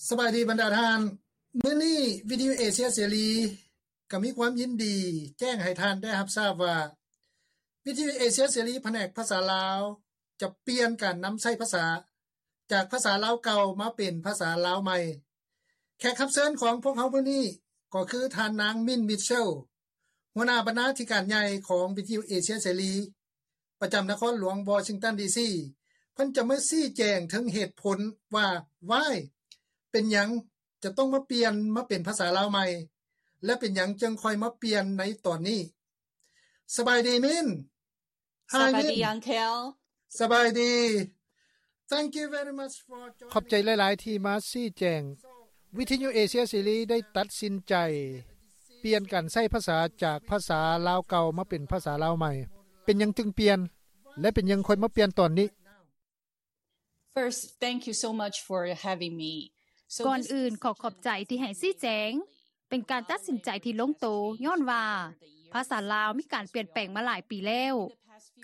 ສະບາຍດີບັນດາທ່ານ. ມື້ນີ້ວິທະຍຸເອເຊຍເສລີກໍມີຄວາມຍິນດີແຈ້ງໃຫ້ທ່ານໄດ້ຮັບຊາບວ່າ ວິທະຍຸເອເຊຍເສລີ ພະແນກພາສາລາວ ຈະປ່ຽນການນຳໃຊ້ພາສາ ຈາກພາສາລາວເກົ່າມາເປັນພາສາລາວໃໝ່. ແຂກຮັບເຊີນຂອງພວກເຮົາມື້ນີ້ກໍຄືທ່ານນາງ ມິນ ມິດເຊລ ຫົວໜ້າບັນນາທິການໃຫຍ່ຂອງວິທະຍຸເອເຊຍເສລີ ປະຈຳນະຄອນຫຼວງວໍຊິງຕັນ ດີຊີ ເພິ່ນຈະມາຊີ້ແຈງເຖິງເຫດຜົນວ່າ why ເປັນຫຍັງຈະຕ້ອງມາປ່ຽນມາເປັນພາສາລາວໃໝ່ ແລະ ເປັນຫຍັງຈຶ່ງຄ່ອຍມາປ່ຽນໃນຕອນນີ້. ສະບາຍດີ ມິນ. ສະບາຍດີ Hi, Min. Uncle. ສະບາຍດີ. Thank you very much for joining. ຂອບໃຈຫຼາຍໆທີ່ມາຊີ້ແຈງ. ວິທະຍຸເອເຊຍເສລີໄດ້ຕັດສິນໃຈປ່ຽນການໃຊ້ພາສາຈາກພາສາລາວເກົ່າມາເປັນພາສາລາວໃໝ່. ເປັນຫຍັງຈຶ່ງປ່ຽນ ແລະ ເປັນຫຍັງຄ່ອຍມາປ່ຽນຕອນນີ້? First, thank you so much for having me. ກ່ອນອື່ນ ຂໍຂອບໃຈທີ່ໃຫ້ຊີ້ແຈງ. ເປັນການຕັດສິນໃຈທີ່ລົງໂຕ ຍ້ອນວ່າພາສາລາວມີການປ່ຽນແປງມາຫຼາຍປີແລ້ວ.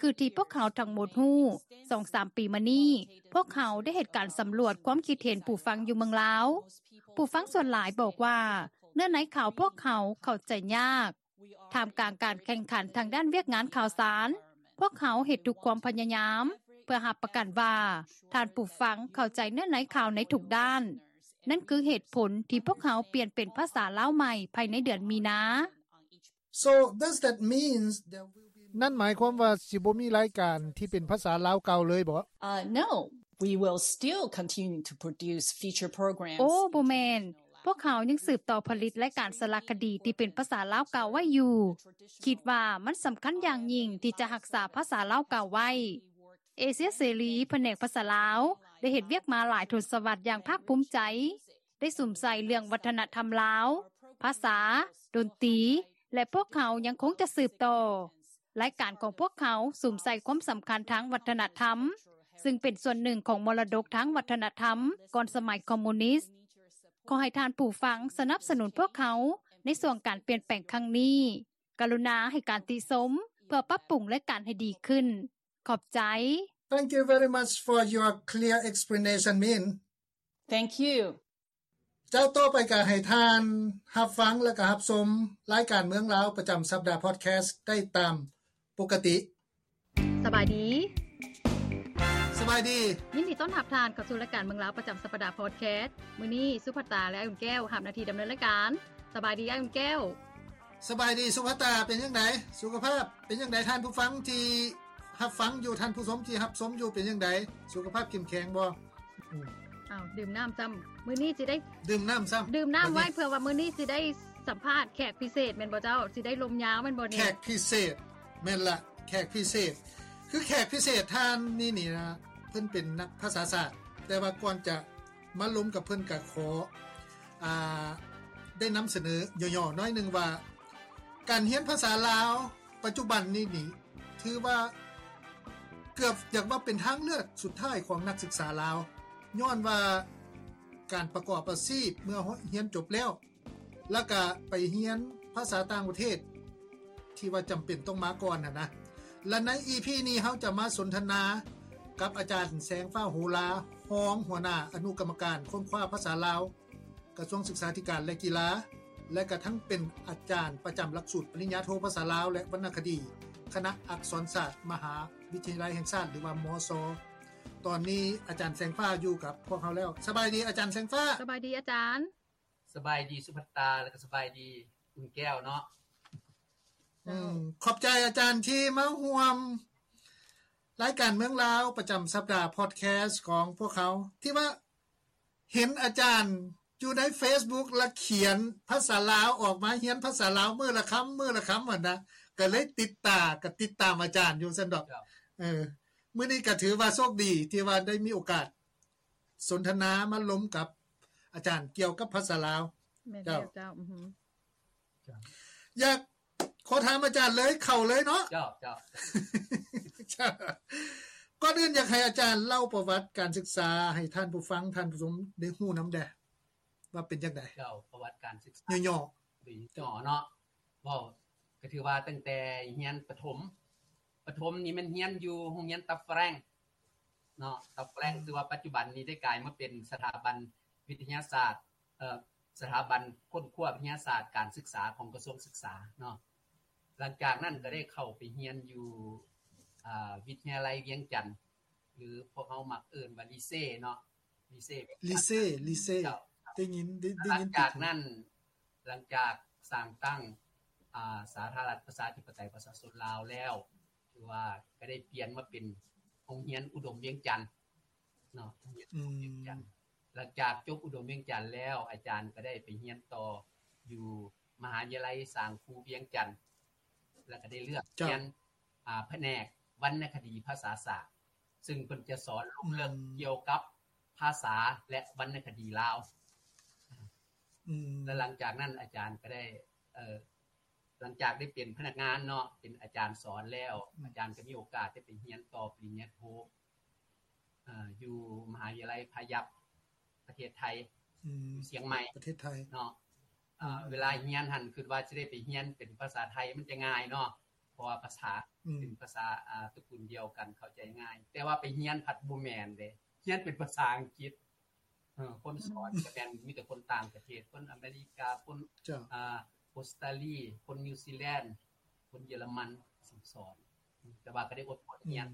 ຄືທີ່ພວກເຮົາທັງໝົດຮູ້, ສອງສາມປີມານີ້ ພວກເຮົາໄດ້ເຮັດການສຳຫຼວດຄວາມຄິດເຫັນຜູ້ຟັງຢູ່ເມືອງລາວ. ຜູ້ຟັງສ່ວນຫຼາຍບອກວ່າ ເນື້ອໃນຂ່າວພວກເຮົາເຂົ້າໃຈຍາກ. ທ່າມກາງການແຂ່ງຂັນທາງດ້ານວຽກງານຂ່າວສານ, ພວກເຮົາເຮັດທຸກຄວາມພະຍາຍາມເພື່ອຮັບປະກັນວ່າທ່ານຜູ້ຟັງເຂົ້າໃຈເນື້ອໃນຂ່າວໃນທຸກດ້ານ. ນັ້ນຄືເຫດຜົນທີ່ພວກເຮົາປ່ຽນເປັນພາສາລາວໃໝ່ພາຍໃນເດືອນມີນາ. So, does that mean there will be ນັ້ນໝາຍຄວາມວ່າຊິບໍ່ມີລາຍການທີ່ເປັນພາສາລາວເກົ່າເລີຍບໍ? Uh, no. We will still continue to produce feature programs. ໂອ້ ບໍ່ແມ່ນ. ພວກເຮົາຍັງສືບຕໍ່ຜະລິດລາຍການສາລະຄະດີທີ່ເປັນພາສາລາວເກົ່າໄວ້ຢູ່. ຄິດວ່າມັນສຳຄັນຢ່າງຍິ່ງທີ່ຈະຮັກສາພາສາລາວເກົ່າໄວ້. ເອເຊຍເສລີ ພະແນກພາສາລາວ ໄດ້ເຮັດວຽກມາຫຼາຍທົດສະວັດຢ່າງພາກພູມໃຈ, ໄດ້ສຸມໃສ່ເລື່ອງວັດທະນະທຳລາວ, ພາສາ, ດົນຕີ ແລະ ພວກເຮົາຍັງຄົງຈະສືບຕໍ່. ລາຍການຂອງພວກເຮົາສຸມໃສ່ຄວາມສຳຄັນທາງວັດທະນະທຳ, ຊຶ່ງເປັນສ່ວນໜຶ່ງຂອງມໍລະດົກທາງວັດທະນະທຳກ່ອນສະໄໝຄອມມູນິດ. ຂໍໃຫ້ທ່ານຜູ້ຟັງສະໜັບສະໜູນພວກເຮົາໃນຊ່ວງການປ່ຽນແປງຄັ້ງນີ້. ກະລຸນາໃຫ້ການຕິຊົມເພື່ອປັບປຸງລາຍການໃຫ້ດີຂຶ້ນ. ຂອບໃຈ. Thank you very much for your clear explanation, Min. Thank you. ຈາກຕໍ່ໄປກໍໃຫ້ທ່ານຮັບຟັງ ແລະ ກໍຮັບຊົມລາຍການເມືອງລາວປະຈຳສັບດາພອດແຄສໄດ້ຕາມປົກກະຕິ. ສະບາຍດີ. ສະບາຍດີ. ຍິນດີຕ້ອນຮັບທ່ານເຂົ້າສູ່ລາຍການເມືອງລາວປະຈຳສັບປະດາພອດແຄສ. ມື້ນີ້ສຸພັດຕາ ແລະ ອ້າຍອຸ່ນແກ້ວຮັບໜ້າທີ່ດຳເນີນລາຍການ. ສະບາຍດີ ອ້າຍອຸ່ນແກ້ວ. ສະບາຍດີ ສຸພັດຕາ. ເປັນຈັ່ງໃດ? ສຸຂະພາບເປັນຈັ່ງໃດ? ທ່ານຜູ້ຟັງທີ່ຮັບຟັງຢູ່, ທ່ານຜູ້ຊົມທີ່ຮັບຊົມຢູ່ ເປັນຈັ່ງໃດ? ສຸຂະພາບເຂັ້ມແຂງບໍ່? ອືມ ອ້າວ ດື່ມນ້ຳຊ້ຳ. ມື້ນີ້ຊິໄດ້ດື່ມນ້ຳຊ້ຳ. ດື່ມນ້ຳໄວ້ເພື່ອວ່າມື້ນີ້ຊິໄດ້ສຳພາດແຂກພິເສດແມ່ນບໍ່ເຈົ້າ? ຊິໄດ້ລົມຍາວແມ່ນບໍ່ນີ້? ແຂກພິເສດ. ແມ່ນລະ ແຂກພິເສດ. ຄືແຂກພິເສດທ່ານນີ້ນີ້ນະ ເພິ່ນເປັນນັກພາສາສາດ, ແຕ່ວ່າກ່ອນຈະມາລົມກັບເພິ່ນ ກະຂໍ ອ່າ ໄດ້ນຳສະເໜີຫຍໍ້ໆໜ້ອຍໜຶ່ງວ່າ ການຮຽນພາສາລາວປັດຈຸບັນນີ້ນີ້ ຖືວ່າເກືອບຢາກວ່າເປັນທາງເລືອກສຸດທ້າຍຂອງນັກສຶກສາລາວ, ຍ້ອນວ່າການປະກອບອາຊີບເມື່ອຮຽນຈົບແລ້ວ ແລ້ວກະໄປຮຽນພາສາຕ່າງປະເທດ ທີ່ວ່າຈຳເປັນຕ້ອງມາກ່ອນຫັ້ນນະ. ແລະ ໃນອີພີນີ້ ເຮົາຈະມາສົນທະນາກັບອາຈານ ແສງຟ້າ ໂຫລາ, ຮອງຫົວໜ້າອະນຸກຳມະການຄົ້ນຄວ້າພາສາລາວ ກະຊວງສຶກສາທິການ ແລະ ກິລາ ແລະ ກະທັງເປັນອາຈານປະຈຳຫຼັກສູດປະລິນຍາໂທພາສາລາວ ແລະ ວັນນະຄະດີ ຄະນະອັກສອນສາດ ມະຫາວິທະຍາໄລແຫ່ງຊາດ ຫຼືວ່າ ມຊ. ຕອນນີ້ອາຈານແສງຟ້າຢູ່ກັບພວກເຮົາແລ້ວ. ສະບາຍດີອາຈານແສງຟ້າ. ສະບາຍດີອາຈານ. ສະບາຍດີສຸພັດຕາ ແລະ ກະສະບາຍດີອຸ່ນແກ້ວເນາະ. ເຈົ້າ. ອືມ ຂອບໃຈອາຈານທີ່ມາຮ່ວມລາຍການເມືອງລາວປະຈຳສັບດາພອດແຄສຂອງພວກເຮົາ ທີ່ວ່າເຫັນອາຈານຢູ່ໃນເຟສບຸກ ລະຂຽນພາສາລາວອອກມາ, ຮຽນພາສາລາວມື້ລະຄຳ ມື້ລະຄຳຫັ້ນນະ, ກະເລີຍຕິດຕາ ກະຕິດຕາມອາຈານຢູ່ຊັ້ນດອກ. ເຈົ້າ. ເອີ ມື້ນີ້ກະຖືວ່າໂຊກດີທີ່ວ່າໄດ້ມີໂອກາດ ສົນທະນາມາລົມກັບອາຈານກ່ຽວກັບພາສາລາວ. ແມ່ນແລ້ວເຈົ້າ. ເຈົ້າ. ອືຮຶ. ເຈົ້າ. ຢາກຂໍຖາມອາຈານເລີຍ ເຂົ້າເລີຍເນາະ. ເຈົ້າ ເຈົ້າ. ເຈົ້າ. ກ່ອນອື່ນຢາກໃຫ້ອາຈານເລົ່າປະຫວັດການສຶກສາໃຫ້ທ່ານຜູ້ຟັງ, ທ່ານຜູ້ຊົມໄດ້ຮູ້ນຳແດ່ ວ່າເປັນຈັ່ງໃດ? ເຈົ້າ. ປະຫວັດການສຶກສາຫຍໍ້ໆ ໂດຍຫຍໍ້ເນາະ. ເວົ້າກະຖືວ່າຕັ້ງແຕ່ຮຽນປະຖົມ, ປະຖົມນີ້ແມ່ນຮຽນຢູ່ໂຮງຮຽນຕັບຝຣັ່ງເນາະ, ຕັບຝຣັ່ງ ອືມ ທີ່ວ່າປັດຈຸບັນນີ້ໄດ້ກາຍມາເປັນສະຖາບັນ ວິທະຍາສາດ ເອີ ສະຖາບັນຄົ້ນຄວ້າວິທະຍາສາດການສຶກສາຂອງກະຊວງສຶກສາເນາະ. ຫຼັງຈາກນັ້ນກໍໄດ້ເຂົ້າໄປຮຽນຢູ່ ເອີ ວິທະຍາໄລວຽງຈັນ ຫຼືພວກເຮົາມັກເອີ້ນວ່າລີເຊເນາະ ລີເຊ ລີເຊ ລີເຊ ເຈົ້າ ໄດ້ຍິນ ໄດ້ ໄດ້ຍິນຕິດຫູ. ຫຼັງຈາກນັ້ນ ຫຼັງຈາກສ້າງຕັ້ງ ອາ ສາທາລະນະລັດປະຊາທິປະໄຕປະຊາຊົນລາວແລ້ວ ຖືວ່າກໍໄດ້ປ່ຽນມາເປັນໂຮງຮຽນອຸດົມວຽງຈັນເນາະ ໂຮງຮຽນອຸດົມວຽງຈັນ. ອືມ ຫຼັງຈາກຈົບອຸດົມວຽງຈັນແລ້ວ ອາຈານກໍໄດ້ໄປຮຽນຕໍ່ຢູ່ມະຫາວິທະຍາໄລສ້າງຄູວຽງຈັນ ແລ້ວກໍໄດ້ເລືອກ ເຈົ້າ ຮຽນ ອາ ພະແນກວັນນະຄະດີພາສາສາກ ຊຶ່ງເພິ່ນຈະສອນລົງເລິກ ອືມ ກ່ຽວກັບພາສາ ແລະ ວັນນະຄະດີລາວ. ອືມ ແລະ ຫຼັງຈາກນັ້ນອາຈານກໍໄດ້ ເອີ ຫຼັງຈາກໄດ້ເປັນພະນັກງານເນາະ ເປັນອາຈານສອນແລ້ວ ອືມ ອາຈານກໍມີໂອກາດໄດ້ໄປຮຽນຕໍ່ປະລິນຍາໂທ ເອີ ຢູ່ມະຫາວິທະຍາໄລພາຍັບ ປະເທດໄທ ອືມ ຢູ່ຊຽງໃໝ່ ປະເທດໄທເນາະ. ອືມ ເວລາຮຽນຫັ້ນຄິດວ່າຊິໄດ້ໄປຮຽນເປັນພາສາໄທມັນຈະງ່າຍເນາະ ເພາະວ່າພາສາ ອືມ ເປັນພາສາ ອາ ຕະກຸນດຽວກັນ ເຂົ້າໃຈງ່າຍ ແຕ່ວ່າໄປຮຽນພັດບໍ່ແມ່ນເດ້ ຮຽນເປັນພາສາອັງກິດ. ເອີ ຄົນສອນ ອືມ ກໍແມ່ນມີແຕ່ຄົນຕ່າງປະເທດ ຄົນອາເມລິກາ ຄົນ ເຈົ້າ ອາ ອົດສະຕາລີ ຄົນນິວຊີແລນ ຄົນເຢຍລະມັນ ສອນ ແຕ່ວ່າກໍໄດ້ອົດທົນຮຽນ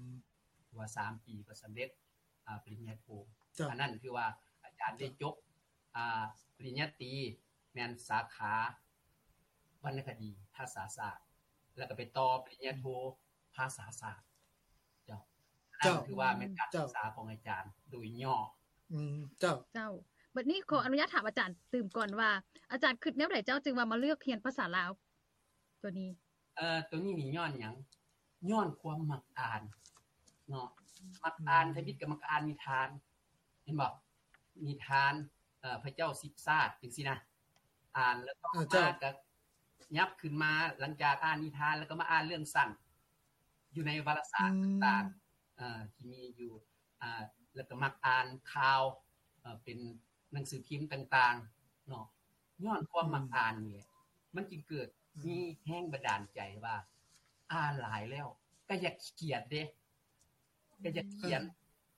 ອືມ ວ່າສາມປີກໍສຳເລັດ ອາ ປະລິນຍາໂທ. ເຈົ້າ ອັນນັ້ນຄືວ່າອາຈານໄດ້ ເຈົ້າ ຈົບ ອາ ປະລິນຍາຕີ ແມ່ນສາຂາວັນນະຄະດີພາສາສາກ ແລ້ວກໍໄປຕໍ່ປະລິນຍາໂທ ອືມ ພາສາສາກ. ເຈົ້າ ເຈົ້າ ນັ້ນຄືວ່າແມ່ນການ ເຈົ້າ ສຶກສາຂອງອາຈານໂດຍຫຍໍ້. ອືມ ເຈົ້າ ເຈົ້າ. ບັດນີ້ຂໍອະນຸຍາດຖາມອາຈານຕື່ມກ່ອນວ່າ ອາຈານຄິດແນວໃດເຈົ້າຈຶ່ງວ່າມາເລືອກຮຽນພາສາລາວໂຕນີ້? ເອີ ໂຕນີ້ນີ້ຍ້ອນຫຍັງ? ຍ້ອນຄວາມມັກອ່ານເນາະ ມັກອ່ານ ອືມ ທຳອິດກໍມັກອ່ານນິທານ ເຫັນບໍ່? ນິທານ ເອີ ພະເຈົ້າສິບຊາດ ຈັ່ງຊີ້ນະ ອ່ານແລ້ວຕໍ່ ເອີ ເຈົ້າ ມາກໍຫຍັບຂຶ້ນມາ ຫຼັງຈາກອ່ານນິທານແລ້ວກໍມາອ່ານເລື່ອງສັ້ນ ຢູ່ໃນວາລະສານ ອືມ ຕ່າງໆ ເອີ ທີ່ມີຢູ່ ອາ ແລ້ວກໍມັກອ່ານຂ່າວ ເອີ ເປັນໜັງສືພິມຕ່າງໆເນາະ. ຍ້ອນຄວາມມັກ ອືມ ອ່ານນີ້ແຫຼະ ມັນຈຶ່ງເກີດ ອືມ ມີແຮງບັນດານໃຈວ່າ ອ່ານຫຼາຍແລ້ວກໍຢາກຂຽນເດ້ ກໍຢາກຂຽນ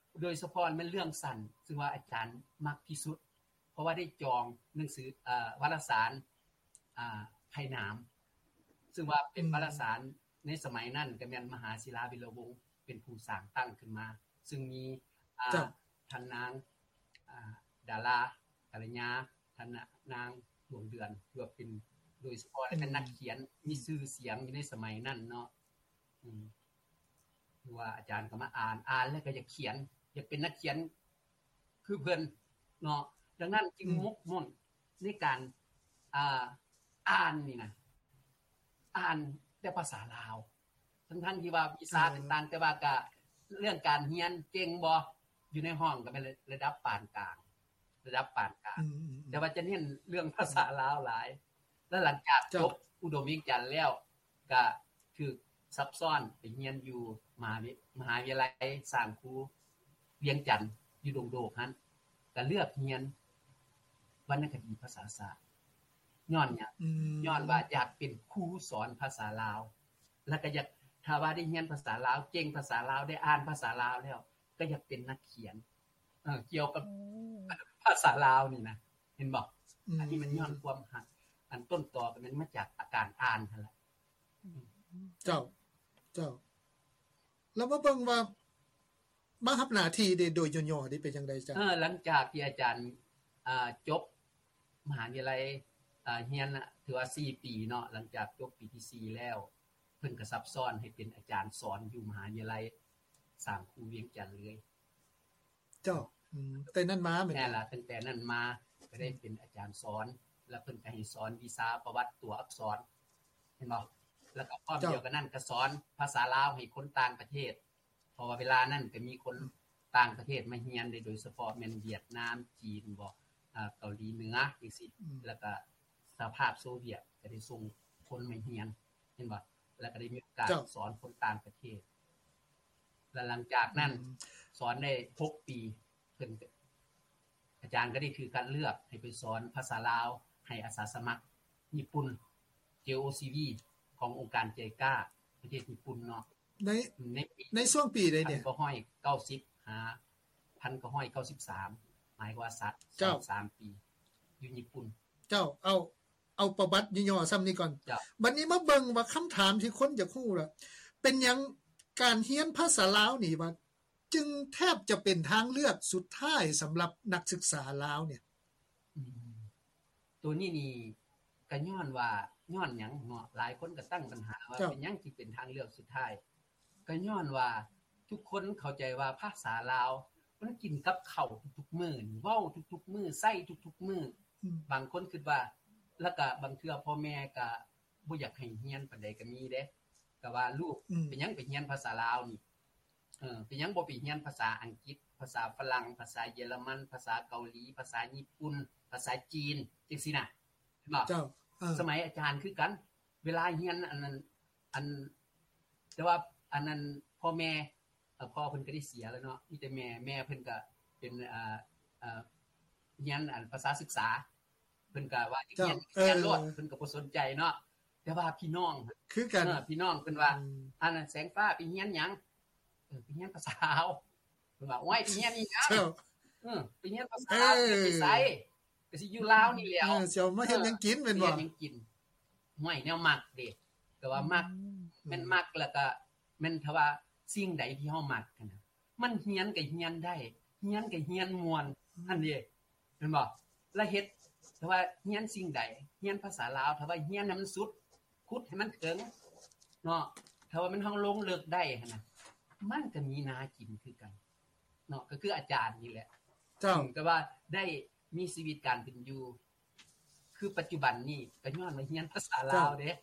ເອີ ໂດຍສະເພາະແມ່ນເລື່ອງສັ້ນ ຊຶ່ງວ່າອາຈານມັກທີ່ສຸດ ເພາະວ່າໄດ້ຈອງໜັງສື ເອີ ວາລະສານ ອາ ໄພໜາມ ຊຶ່ງວ່າເປັນ ອືມ ວາລະສານໃນສະໄໝນັ້ນ ກໍແມ່ນມະຫາສິລາວິລະວົງ ເປັນຜູ້ສ້າງຕັ້ງຂຶ້ນມາ ຊຶ່ງມີ ອາ ເຈົ້າ ທ່ານນາງ ອາ ດາລາ ກັນລະຍາ ທ່ານນາງ ດວງເດືອນ ຖືວ່າເປັນ ໂດຍສະເພາະ ອືມ ແລະ ເປັນນັກຂຽນ ອືມ ມີຊື່ສຽງຢູ່ໃນສະໄໝນັ້ນເນາະ. ອືມ ຄືວ່າອາຈານກໍມາອ່ານ ອ່ານແລ້ວກໍຢາກຂຽນ ຢາກເປັນນັກຂຽນຄືເພິ່ນເນາະ. ດັ່ງນັ້ນຈຶ່ງ ອືມ ໝົກໝຸ້ນໃນການ ອ່າ ອ່ານນີ້ນະ ອ່ານແຕ່ພາສາລາວ ທັງໆທີ່ວ່າວິຊາ ເອີ ຕ່າງໆ ແຕ່ວ່າກະເລື່ອງການຮຽນເກັ່ງບໍ່ ຢູ່ໃນຫ້ອງກໍແມ່ນລະດັບປານກາງ ລະດັບປານກາງ ອືມໆໆ ແຕ່ວ່າຈະເນັ້ນເລື່ອງພາສາລາວຫຼາຍ. ແລ້ວຫຼັງຈາກ ເຈົ້າ ຈົບອຸດົມວຽງຈັນແລ້ວ ກະຖືກຊັບຊ້ອນໄປຮຽນຢູ່ມະຫາວິ ມະຫາວິທະຍາໄລສ້າງຄູວຽງຈັນ ຢູ່ດົງໂດກຫັ້ນ ກະເລືອກຮຽນວັນນະຄະດີພາສາສາກ. ຍ້ອນຫຍັງ? ອືມ ຍ້ອນວ່າຢາກເປັນຄູສອນພາສາລາວ ແລ້ວກໍຢາກ ຖ້າວ່າໄດ້ຮຽນພາສາລາວ ເກັ່ງພາສາລາວ ໄດ້ອ່ານພາສາລາວແລ້ວ ກໍຢາກເປັນນັກຂຽນ ເອີ ກ່ຽວກັບ ໂອ້ ພາສາລາວນີ້ນະ ເຫັນບໍ່? ອືມ ອັນນີ້ມັນຍ້ອນຄວາມຮັກ ອັນຕົ້ນຕໍກໍແມ່ນມາຈາກອາການອ່ານຫັ້ນລະ. ເຈົ້າ ເຈົ້າ ແລ້ວມາເບິ່ງວ່າ ມາຮັບໜ້າທີ່ເດ ໂດຍຫຍໍ້ໆເດ ເປັນຈັ່ງໃດເຈົ້າ? ເອີ ຫຼັງຈາກທີ່ອາຈານ ອ່າ ຈົບມະຫາວິທະຍາໄລ ອ່າ ຮຽນນະ ຖືວ່າສີ່ປີເນາະ ຫຼັງຈາກຈົບປີທີສີ່ແລ້ວ ເພິ່ນກໍຊັບຊ້ອນໃຫ້ເປັນອາຈານສອນຢູ່ມະຫາວິທະຍາໄລສ້າງຄູວຽງຈັນເລີຍ. ເຈົ້າ ອືມ ແຕ່ນັ້ນມາແມ່ນ ແມ່ນລະ ຕັ້ງແຕ່ນັ້ນມາກໍໄດ້ ອືມ ເປັນອາຈານສອນ ແລ້ວເພິ່ນກໍໃຫ້ສອນວິຊາປະຫວັດຕົວອັກສອນ ເຫັນບໍ່? ແລ້ວກໍພ້ອມ ເຈົ້າ ດຽວກັນນັ້ນກໍສອນພາສາລາວໃຫ້ຄົນຕ່າງປະເທດ ເພາະວ່າເວລານັ້ນກໍມີຄົນ ອືມ ຕ່າງປະເທດມາຮຽນເດ້ ໂດຍສະເພາະແມ່ນຫວຽດນາມ ຈີນບໍ ເກົາຫຼີເໜືອຈັ່ງຊີ້ ອືມ ແລ້ວກໍສະຫະພາບໂຊວຽດກໍໄດ້ສົ່ງຄົນມາຮຽນ ເຫັນບໍ່? ແລ້ວກໍໄດ້ມີໂອກາດ ເຈົ້າ ສອນຄົນຕ່າງປະເທດ ແລ້ວຫຼັງຈາກນັ້ນ ອືມ ສອນໄດ້ຫົກປີ ເພິ່ນ ອາຈານກໍໄດ້ຖືກຄັດເລືອກໃຫ້ໄປສອນພາສາລາວໃຫ້ອາສາສະໝັກຍີ່ປຸ່ນ ເຈໂອຊີວີ ຂອງອົງການໄຈກາ ປະເທດຍີ່ປຸ່ນເນາະ ໃນ ໃນປີ ໃນຊ່ວງປີໃດນີ້? ພັນເກົ້າຮ້ອຍເກົ້າສິບ ຫາ ພັນເກົ້າຮ້ອຍເກົ້າສິບສາມ າຍກວ່າສາມ ເຈົ້າ ສາມປີຢູ່ຍີ່ປຸ່ນ. ເຈົ້າ ເອົາ ເອົາປະຫວັດຫຍໍ້ໆສ່ຳນີ້ກ່ອນ. ເຈົ້າ. ບັດນີ້ມາເບິ່ງວ່າຄຳຖາມທີ່ຄົນຢາກຮູ້ລະ ເປັນຫຍັງການຮຽນພາສາລາວນີ້ວ່າ ຈຶ່ງແທບຈະເປັນທາງເລືອກສຸດທ້າຍສຳລັບນັກສຶກສາລາວເນຍ? ອືມ ໂຕນີ້ນີ້ກະຍ້ອນວ່າ ຍ້ອນຫຍັງເນາະ? ຫຼາຍຄົນກະຕັ້ງບັນຫາວ່າ ເຈົ້າ ເປັນຫຍັງຈຶ່ງເປັນທາງເລືອກສຸດທ້າຍ? ກະຍ້ອນວ່າທຸກຄົນເຂົ້າໃຈວ່າພາສາລາວມັນກິນກັບເຂົ້າທຸກໆມື້ນີ້ ເວົ້າທຸກໆມື້ ໃຊ້ທຸກໆມື້. ອືມ ບາງຄົນຄິດວ່າ ລະກະບາງເທື່ອພໍ່ແມ່ກະບໍ່ຢາກໃຫ້ຮຽນປານໃດກະມີເດ້ ກະວ່າລູກ ອືມ ເປັນຫຍັງໄປຮຽນພາສາລາວນີ້? ເອີ ເປັນຫຍັງບໍ່ໄປຮຽນພາສາອັງກິດ, ພາສາຝຣັ່ງ, ພາສາເຢຍລະມັນ, ພາສາເກົາຫຼີ, ພາສາຍີ່ປຸ່ນ, ພາສາຈີນ ຈັ່ງຊີ້ນະ ເຫັນບໍ່? ເຈົ້າ. ເອີ ສະໄໝອາຈານຄືກັນ ເວລາຮຽນອັນນັ້ນ ອັນ ແຕ່ວ່າອັນນັ້ນ ພໍ່ແມ່ ເອີ ພໍ່ເພິ່ນກະໄດ້ເສຍແລ້ວເນາະ ມີແຕ່ແມ່ ແມ່ເພິ່ນກະເປັນ ເອີ ເອີ ຮຽນອັນພາສາສຶກສາ ເພິ່ນກະວ່າຮຽນ ເຈົ້າ ຮຽນໂລດ ເອີ ເພິ່ນກະບໍ່ສົນໃຈເນາະ. ແຕ່ວ່າພີ່ນ້ອງ ຄືກັນ ເອີ ພີ່ນ້ອງເພິ່ນວ່າ ອືມ ອັນນັ້ນ ແສງຟ້າໄປຮຽນຫຍັງ? ເອີ ໄປຮຽນພາສາລາວ. ເພິ່ນວ່າ ໂອ້ຍ ໄປຮຽນອີ່ຫຍັງ? ເຈົ້າ. ເອີ ໄປຮຽນພາສາລາວ ເອີ ຊິໄປໃສ? ກະຊິຢູ່ລາວນີ້ແຫຼ້ວ. ເອີ ຊິເອົາມາເຮັດຫຍັງກິນແມ່ນບໍ່? ເຮັດຫຍັງກິນ? ຫ້ວຍ ແນວມັກເດ້ ກະວ່າມັກ ອືມ ແມ່ນມັກ ລະກະແມ່ນ ຖ້າວ່າສິ່ງໃດທີ່ເຮົາມັກຫັ້ນນະ ມັນຮຽນກະຮຽນໄດ້ ຮຽນກະຮຽນມ່ວນ ອືມ ຫັ້ນເດ້ ແມ່ນບໍ່? ລະເຮັດ ຖ້າວ່າຮຽນສິ່ງໃດ ຮຽນພາສາລາວ ຖ້າວ່າຮຽນໃຫ້ມັນສຸດ ຂຸດໃຫ້ມັນເຖິງເນາະ ຖ້າວ່າມັນ ເຮົາລົງເລິກໄດ້ຫັ້ນນະ ມັນກະມີໜ້າກິນຄືກັນເນາະ ກະຄືອາຈານນີ້ແຫຼະ. ເຈົ້າ. ເຊິ່ງກະວ່າໄດ້ມີຊີວິດການເປັນຢູ່ ຄືປັດຈຸບັນນີ້ກະຍ້ອນວ່າຮຽນພາສາລາວເດ້. ເຈົ້າ.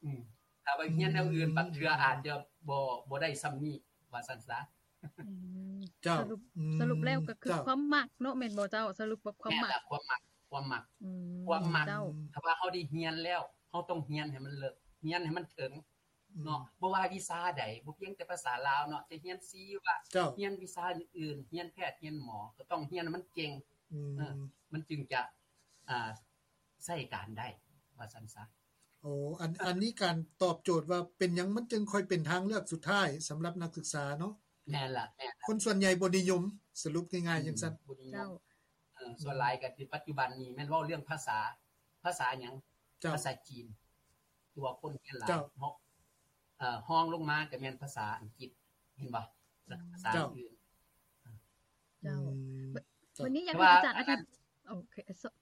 ອືມ ຖ້າວ່າຮຽນແນວອື່ນ ອືມ ບາງເທື່ອອາດຈະບໍ່ ບໍ່ໄດ້ສ່ຳນີ້ ວ່າຊັ້ນຊະ. ອືມ ເຈົ້າ. ສະຫຼຸບ ອືມ ສະຫຼຸບແລ້ວກະຄື ເຈົ້າ ຄວາມມັກເນາະ ແມ່ນບໍ່ເຈົ້າ? ສະຫຼຸບວ່າຄວາມມັກ ແມ່ນລະ ຄວາມມັກ ຄວາມມັກ ອືມ ຄວາມມັກ ເຈົ້າ. ຖ້າວ່າເຮົາໄດ້ຮຽນແລ້ວ ເຮົາຕ້ອງຮຽນໃຫ້ມັນເລິກ ຮຽນໃຫ້ມັນເຖິງ ອືມ ເນາະ ບໍ່ວ່າວິຊາໃດ ບໍ່ພຽງແຕ່ພາສາລາວເນາະ ຈະຮຽນຊີວະ ເຈົ້າ ຮຽນວິຊາອື່ນໆ ຮຽນແພດ ຮຽນໝໍ ກະຕ້ອງຮຽນໃຫ້ມັນເກັ່ງ ອືມ ເອີ ມັນຈຶ່ງຈະ ອ່າ ໃຊ້ການໄດ້ ວ່າຊັ້ນຊະ. ໂອ້ ອັນ ອັນນີ້ການຕອບໂຈດວ່າເປັນຫຍັງມັນຈຶ່ງຄ່ອຍເປັນທາງເລືອກສຸດທ້າຍສຳລັບນັກສຶກສາເນາະ. ແມ່ນລະ ແມ່ນລະ ຄົນສ່ວນໃຫຍ່ບໍ່ນິຍົມ ສະຫຼຸບງ່າຍໆ ອືມ ຈັ່ງຊັ້ນ ບໍ່ນິຍົມ ເຈົ້າ. ເອີ ສ່ວນຫຼາຍກະຄືປັດຈຸບັນນີ້ແມ່ນເວົ້າເລື່ອງພາສາ ພາສາຫຍັງ? ເຈົ້າ. ພາສາຈີນ ຕົວຄົນຮຽນຫຼາຍ ເຈົ້າ ເນາະ ເອີ ຮອງລົງມາກະແມ່ນພາສາອັງກິດ ເຫັນບໍ່? ລະກະພາສາ ເຈົ້າ ອື່ນ ເຈົ້າ. ອືມ ບ- ເຈົ້າ. ບັດນີ້ຢາກໃຫ້ອາຈານອະທິບ- ໂອເຄ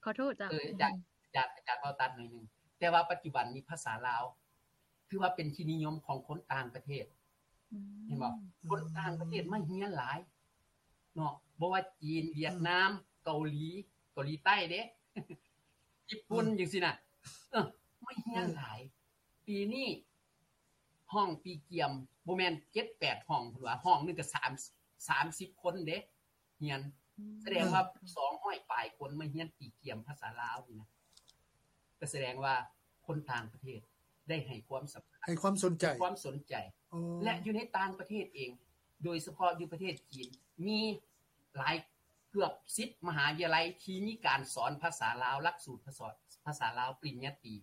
ຂໍໂທດເຈົ້າ ເອີ ອາຈານ ອາຈານ ອາຈານເວົ້າຕັດໜ້ອຍໜຶ່ງ ແຕ່ວ່າປັດຈຸບັນນີ້ພາສາລາວ ຖືວ່າເປັນທີ່ນິຍົມຂອງຄົນຕ່າງປະເທດ ອືມ ເຫັນບໍ່? ອືມ ຄົນຕ່າງປະເທດມາຮຽນຫຼາຍເນາະ ບໍ່ວ່າຈີນ ຫວຽດນາມ ເກົາຫຼີ ເກົາຫຼີໃຕ້ເດ້ ຍີ່ປຸ່ນ ອືມ ຈັ່ງຊີ້ນະ ເອີ ມາຮຽນຫຼາຍ. ອືມ ປີນີ້ຫ້ອງປີກຽມ ບໍ່ແມ່ນເຈັດແປດຫ້ອງ ເພິ່ນວ່າ ຫ້ອງໜຶ່ງກະສາມ ສາມສິບຄົນເດ້ ຮຽນ ອືມ ສະແດງວ່າ ເອີ ສອງຮ້ອຍປາຍຄົນມາຮຽນຕີກຽມພາສາລາວນີ້ນະ ກະສະແດງວ່າຄົນຕ່າງປະເທດໄດ້ໃຫ້ຄວາມສຳຄັນ ໃຫ້ຄວາມສົນໃຈ ໃຫ້ຄວາມສົນໃຈ ໂອ້ ແລະ ຢູ່ໃນຕ່າງປະເທດເອງ ໂດຍສະເພາະຢູ່ປະເທດຈີນ ມີຫຼາຍ ເກືອບສິບມະຫາວິທະຍາໄລທີ່ມີການສອນພາສາລາວ ຫຼັກສູດພາສາ ພາສາລາວປະລິນຍາຕີ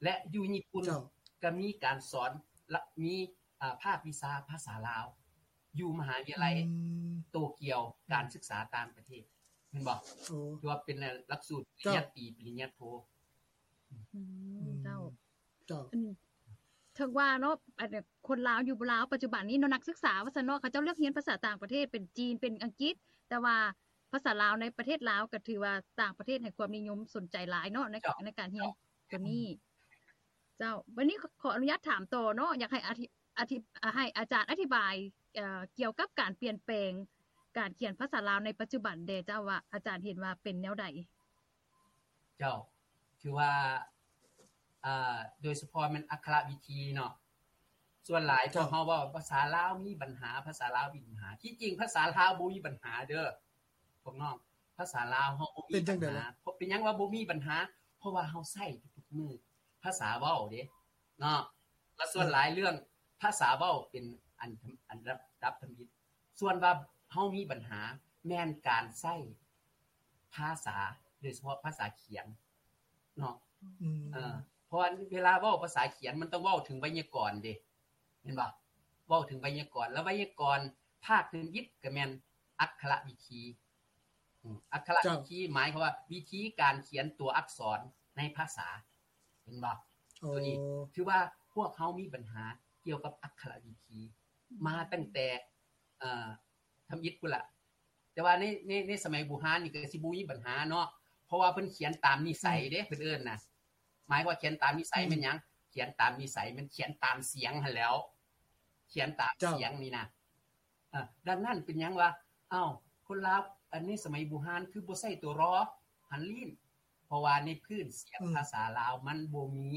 ແລະ ຢູ່ຍີ່ປຸ່ນ ເຈົ້າ ກະມີການສອນ ລະ ມີ ອາ ພາກວິຊາພາສາລາວ ຢູ່ມະຫາວິທະຍາໄລ ອືມ ໂຕກຽວ ອືມ ການສຶກສາຕ່າງປະເທດ ແມ່ນບໍ່? ໂອ້ ຖືວ່າເປັນຫຼັກສູດປະລິນຍາຕີ ເຈົ້າ ປະລິນຍາໂທ. ອືມ ອືມ ເຈົ້າ ເຈົ້າ ອັນ ເຖິງວ່າເນາະ ອັນ ຄົນລາວຢູ່ລາວປັດຈຸບັນນີ້ເນາະ ນັກສຶກສາວ່າຊັ້ນເນາະ ເຂົາເຈົ້າເລືອກຮຽນພາສາຕ່າງປະເທດ ເປັນຈີນ ເປັນອັງກິດ ແຕ່ວ່າພາສາລາວໃນປະເທດລາວກະຖືວ່າຕ່າງປະເທດໃຫ້ຄວາມນິຍົມສົນໃຈຫຼາຍເນາະ ໃນ ເຈົ້າ ໃນການຮຽນ ເຈົ້າ ໂຕນີ້. ເຈົ້າ ບັດນີ້ຂໍອະນຸຍາດຖາມຕໍ່ເນາະ ຢາກໃຫ້ອາທິ ອາທິ ໃຫ້ອາຈານອະທິບາຍ ເອີ ກ່ຽວກັບການປ່ຽນແປງການຂຽນພາສາລາວໃນປັດຈຸບັນແດ່ເຈົ້າ ວ່າອາຈານເຫັນວ່າເປັນແນວໃດ? ເຈົ້າ ຄືວ່າ ອາ ໂດຍສະເພາະແມ່ນອັກຂະລະວິທີເນາະ ສ່ວນຫຼາຍ ເຈົ້າ ພວກເຮົາເວົ້າພາສາລາວມີບັນຫາ ພາສາລາວມີບັນຫາ ທີ່ຈິງພາສາລາວບໍ່ມີບັນຫາເດີພວກນ້ອງ ພາສາລາວເຮົາບໍ່ມີບັນຫາ. ເປັນຫຍັງວ່າບໍ່ມີບັນຫາ? ເພາະວ່າເຮົາໃຊ້ທຸກໆມື້ ພາສາເວົ້າເດ້ເນາະ ລະສ່ວນຫຼາຍເລື່ອງພາສາເວົ້າເປັນອັນ ອັນດັບ ດັບທຳອິດ ສ່ວນວ່າເຮົາມີບັນຫາແມ່ນການໃຊ້ພາສາ ໂດຍສະເພາະພາສາຂຽນເນາະ ອືມ ເອີ ເພາະວ່າເວລາເວົ້າພາສາຂຽນມັນຕ້ອງເວົ້າເຖິງໄວຍາກອນເດ້ ແມ່ນບໍ່? ເວົ້າເຖິງໄວຍາກອນ ລະໄວຍາກອນພາກທຳອິດກະແມ່ນ ອັກຂະລະວິທີ. ອືມ ອັກຂະລະວິທີ ເຈົ້າ ໝາຍຄວາມວ່າວິທີການຂຽນຕົວອັກສອນໃນພາສາ ເຫັນບໍ່? ໂອ້ ໂຕນີ້ຖືວ່າພວກເຮົາມີບັນຫາກ່ຽວກັບອັກຂະລະວິທີ ອືມ ມາຕັ້ງແຕ່ ເອີ ທຳອິດພຸ້ນລະ. ແຕ່ວ່າໃນ ໃນ ໃນສະໄໝບູຮານນີ້ກໍຊິບໍ່ມີບັນຫາເນາະ ເພາະວ່າເພິ່ນຂຽນຕາມນິໄສເດ້ ອືມ ເພິ່ນເອີ້ນນະ. ໝາຍວ່າຂຽນຕາມນິໄສ ອືມ ແມ່ນຫຍັງ? ຂຽນຕາມນິໄສ ແມ່ນຂຽນຕາມສຽງຫັ້ນແຫຼ້ວ ຂຽນຕາມ ເຈົ້າ ສຽງນີ້ນະ. ເອີ ດັ່ງນັ້ນເປັນຫຍັງວ່າ ອ້າວ ຄົນລາວ ອັນໃນສະໄໝບູຮານຄືບໍ່ໃຊ້ຕົວ ຣ ຫັນລີ້ນ? ເພາະວ່າໃນພື້ນສຽງ ອືມ ພາສາລາວມັນບໍ່ມີ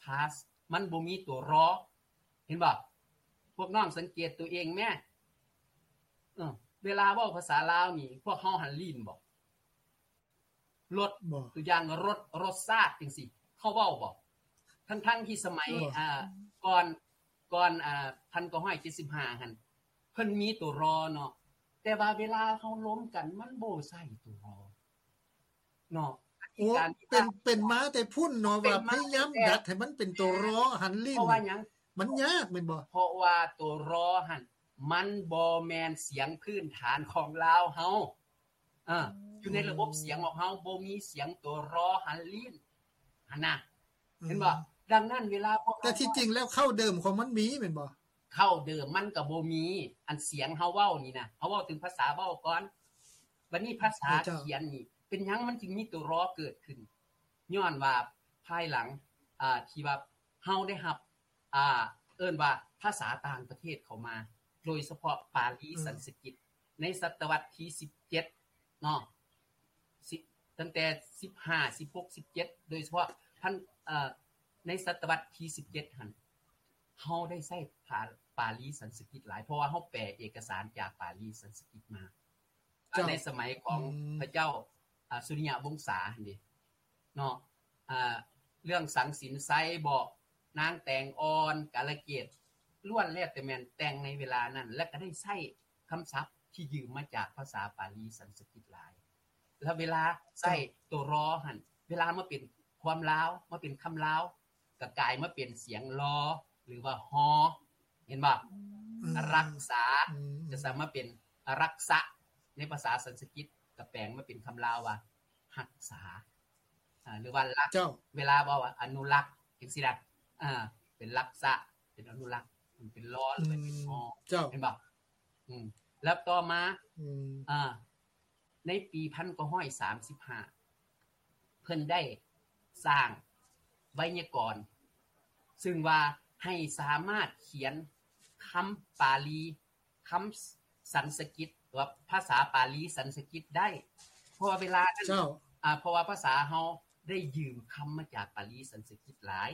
ພາສ ມັນບໍ່ມີຕົວ ຣ. ເຫັນບໍ່? ພວກນ້ອງສັງເກດຕົວເອງແມ້ ເອີ ເວລາເວົ້າພາສາລາວນີ້ ພວກເຮົາຫັນລີ້ນບໍ່? ລົດ ບໍ່ ຕົວຢ່າງ ລົດ ລົດຊາດ ຈັ່ງຊີ້ ເຂົາເວົ້າບໍ່? ທັງໆທີ່ສະໄໝ ບໍ່ ອ່າ ກ່ອນ ກ່ອນ ອ່າ ພັນເກົ້າຮ້ອຍເຈັດສິບຫ້າຫັ້ນ ເພິ່ນມີຕົວ ຣ ເນາະ ແຕ່ວ່າເວລາເຮົາລົມກັນ ມັນບໍ່ໃຊ້ຕົວ ຣ ເນາະ. ໂອ້ ການທີ່ ເປັນ ເປັນມາແຕ່ພຸ້ນເນາະ ເປັນມາ ວ່າພະຍາຍາມ ແຕ່ ດັດໃຫ້ມັນເປັນຕົວ ຣ ຫັນລີ້ນ ເພາະວ່າຫຍັງ? ມັນຍາກແມ່ນບໍ່? ເພາະວ່າຕົວ ຣ ຫັ້ນ ມັນບໍ່ແມ່ນສຽງພື້ນຖານຂອງລາວເຮົາ. ເອີ ອືມ ຢູ່ໃນລະບົບສຽງຂອງເຮົາບໍ່ມີສຽງຕົວ ຣ ຫັນລີ້ນຫັ້ນນະ ອືມ ເຫັນບໍ່? ດັ່ງນັ້ນເວລາພວກເຮົາ ແຕ່ທີ່ຈິງແລ້ວເຄົ້າເດີມຂອງມັນມີແມ່ນບໍ່? ເຄົ້າເດີມມັນກໍບໍ່ມີ ອັນສຽງເຮົາເວົ້ານີ້ນະ ເຮົາເວົ້າເຖິງພາສາເວົ້າກ່ອນ ບັດນີ້ພາສາ ເຈົ້າ ຂຽນນີ້ ເປັນຫຍັງມັນຈຶ່ງມີຕົວ ຣ ເກີດຂຶ້ນ? ຍ້ອນວ່າພາຍຫຼັງ ອ່າ ທີ່ວ່າເຮົາໄດ້ຮັບ ອ່າ ເອີ້ນວ່າພາສາຕ່າງປະເທດເຂົ້າມາ ໂດຍສະເພາະປາລີ ອືມ ສັນສະກິດ ໃນສະຕະວັດທີສິບເຈັດເນາະ ສິ ຕັ້ງແຕ່ສິບຫ້າ ສິບຫົກ ສິບເຈັດ ໂດຍສະເພາະພັນ ເອີ ໃນສະຕະວັດທີສິບເຈັດຫັ້ນ ເຮົາໄດ້ໃຊ້ພາ ປາລີສັນສະກິດຫຼາຍ ເພາະວ່າເຮົາແປເອກະສານຈາກປາລີສັນສະກິດມາ. ເຈົ້າ ໃນສະໄໝຂອງ ອືມ ພະເຈົ້າ ອາ ສຸລິຍະວົງສາຫັ້ນເດ ເນາະ ອາ ເລື່ອງສັງສິນໄຊບໍ ນາງແຕງອ່ອນ ກາລະເກດ ລ້ວນແລ້ວແຕ່ແມ່ນແຕ່ງໃນເວລານັ້ນ ແລະ ກໍໄດ້ໃຊ້ຄຳສັບທີ່ຢືມມາຈາກພາສາປາລີສັນສະກິດຫຼາຍ. ແລ້ວເວລາໃຊ້ ເຈົ້າ ຕົວ ຣ ຫັ້ນ ເວລາມາເປັນຄວາມລາວ ມາເປັນຄຳລາວ ກໍກາຍມາເປັນສຽງ ລ ຫຼືວ່າ ຮ ເຫັນບໍ່? ອືມ ອາລັກສາ ອືມ ຈະສາມາດເປັນອາລັກສະ ໃນພາສາສັນສະກິດ ກໍແປງມາເປັນຄຳລາວວ່າ ຮັກສາ ອາ ຫຼືວ່າລັກ ເຈົ້າ ເວລາເວົ້າວ່າອະນຸລັກ ຈັ່ງຊີ້ນະ ອາ ເປັນລັກສະ ເປັນອະນຸລັກ ເປັນ ລ ຫຼືວ່າເປັນ ຮ ອືມ ເຈົ້າ ເຫັນບໍ່? ອືມ ແລ້ວຕໍ່ມາ ອືມ ອາ ໃນປີພັນເກົ້າຮ້ອຍສາມສິບຫ້າ ເພິ່ນໄດ້ສ້າງໄວຍາກອນ ຊຶ່ງວ່າໃຫ້ສາມາດຂຽນຄຳປາລີ ຄຳສັນສະກິດ ຫຼືວ່າພາສາປາລີສັນສະກິດໄດ້ ເພາະວ່າເວລານັ້ນ ເຈົ້າ ອາ ເພາະວ່າພາສາເຮົາໄດ້ຢືມຄຳມາຈາກປາລີສັນສະກິດຫຼາຍ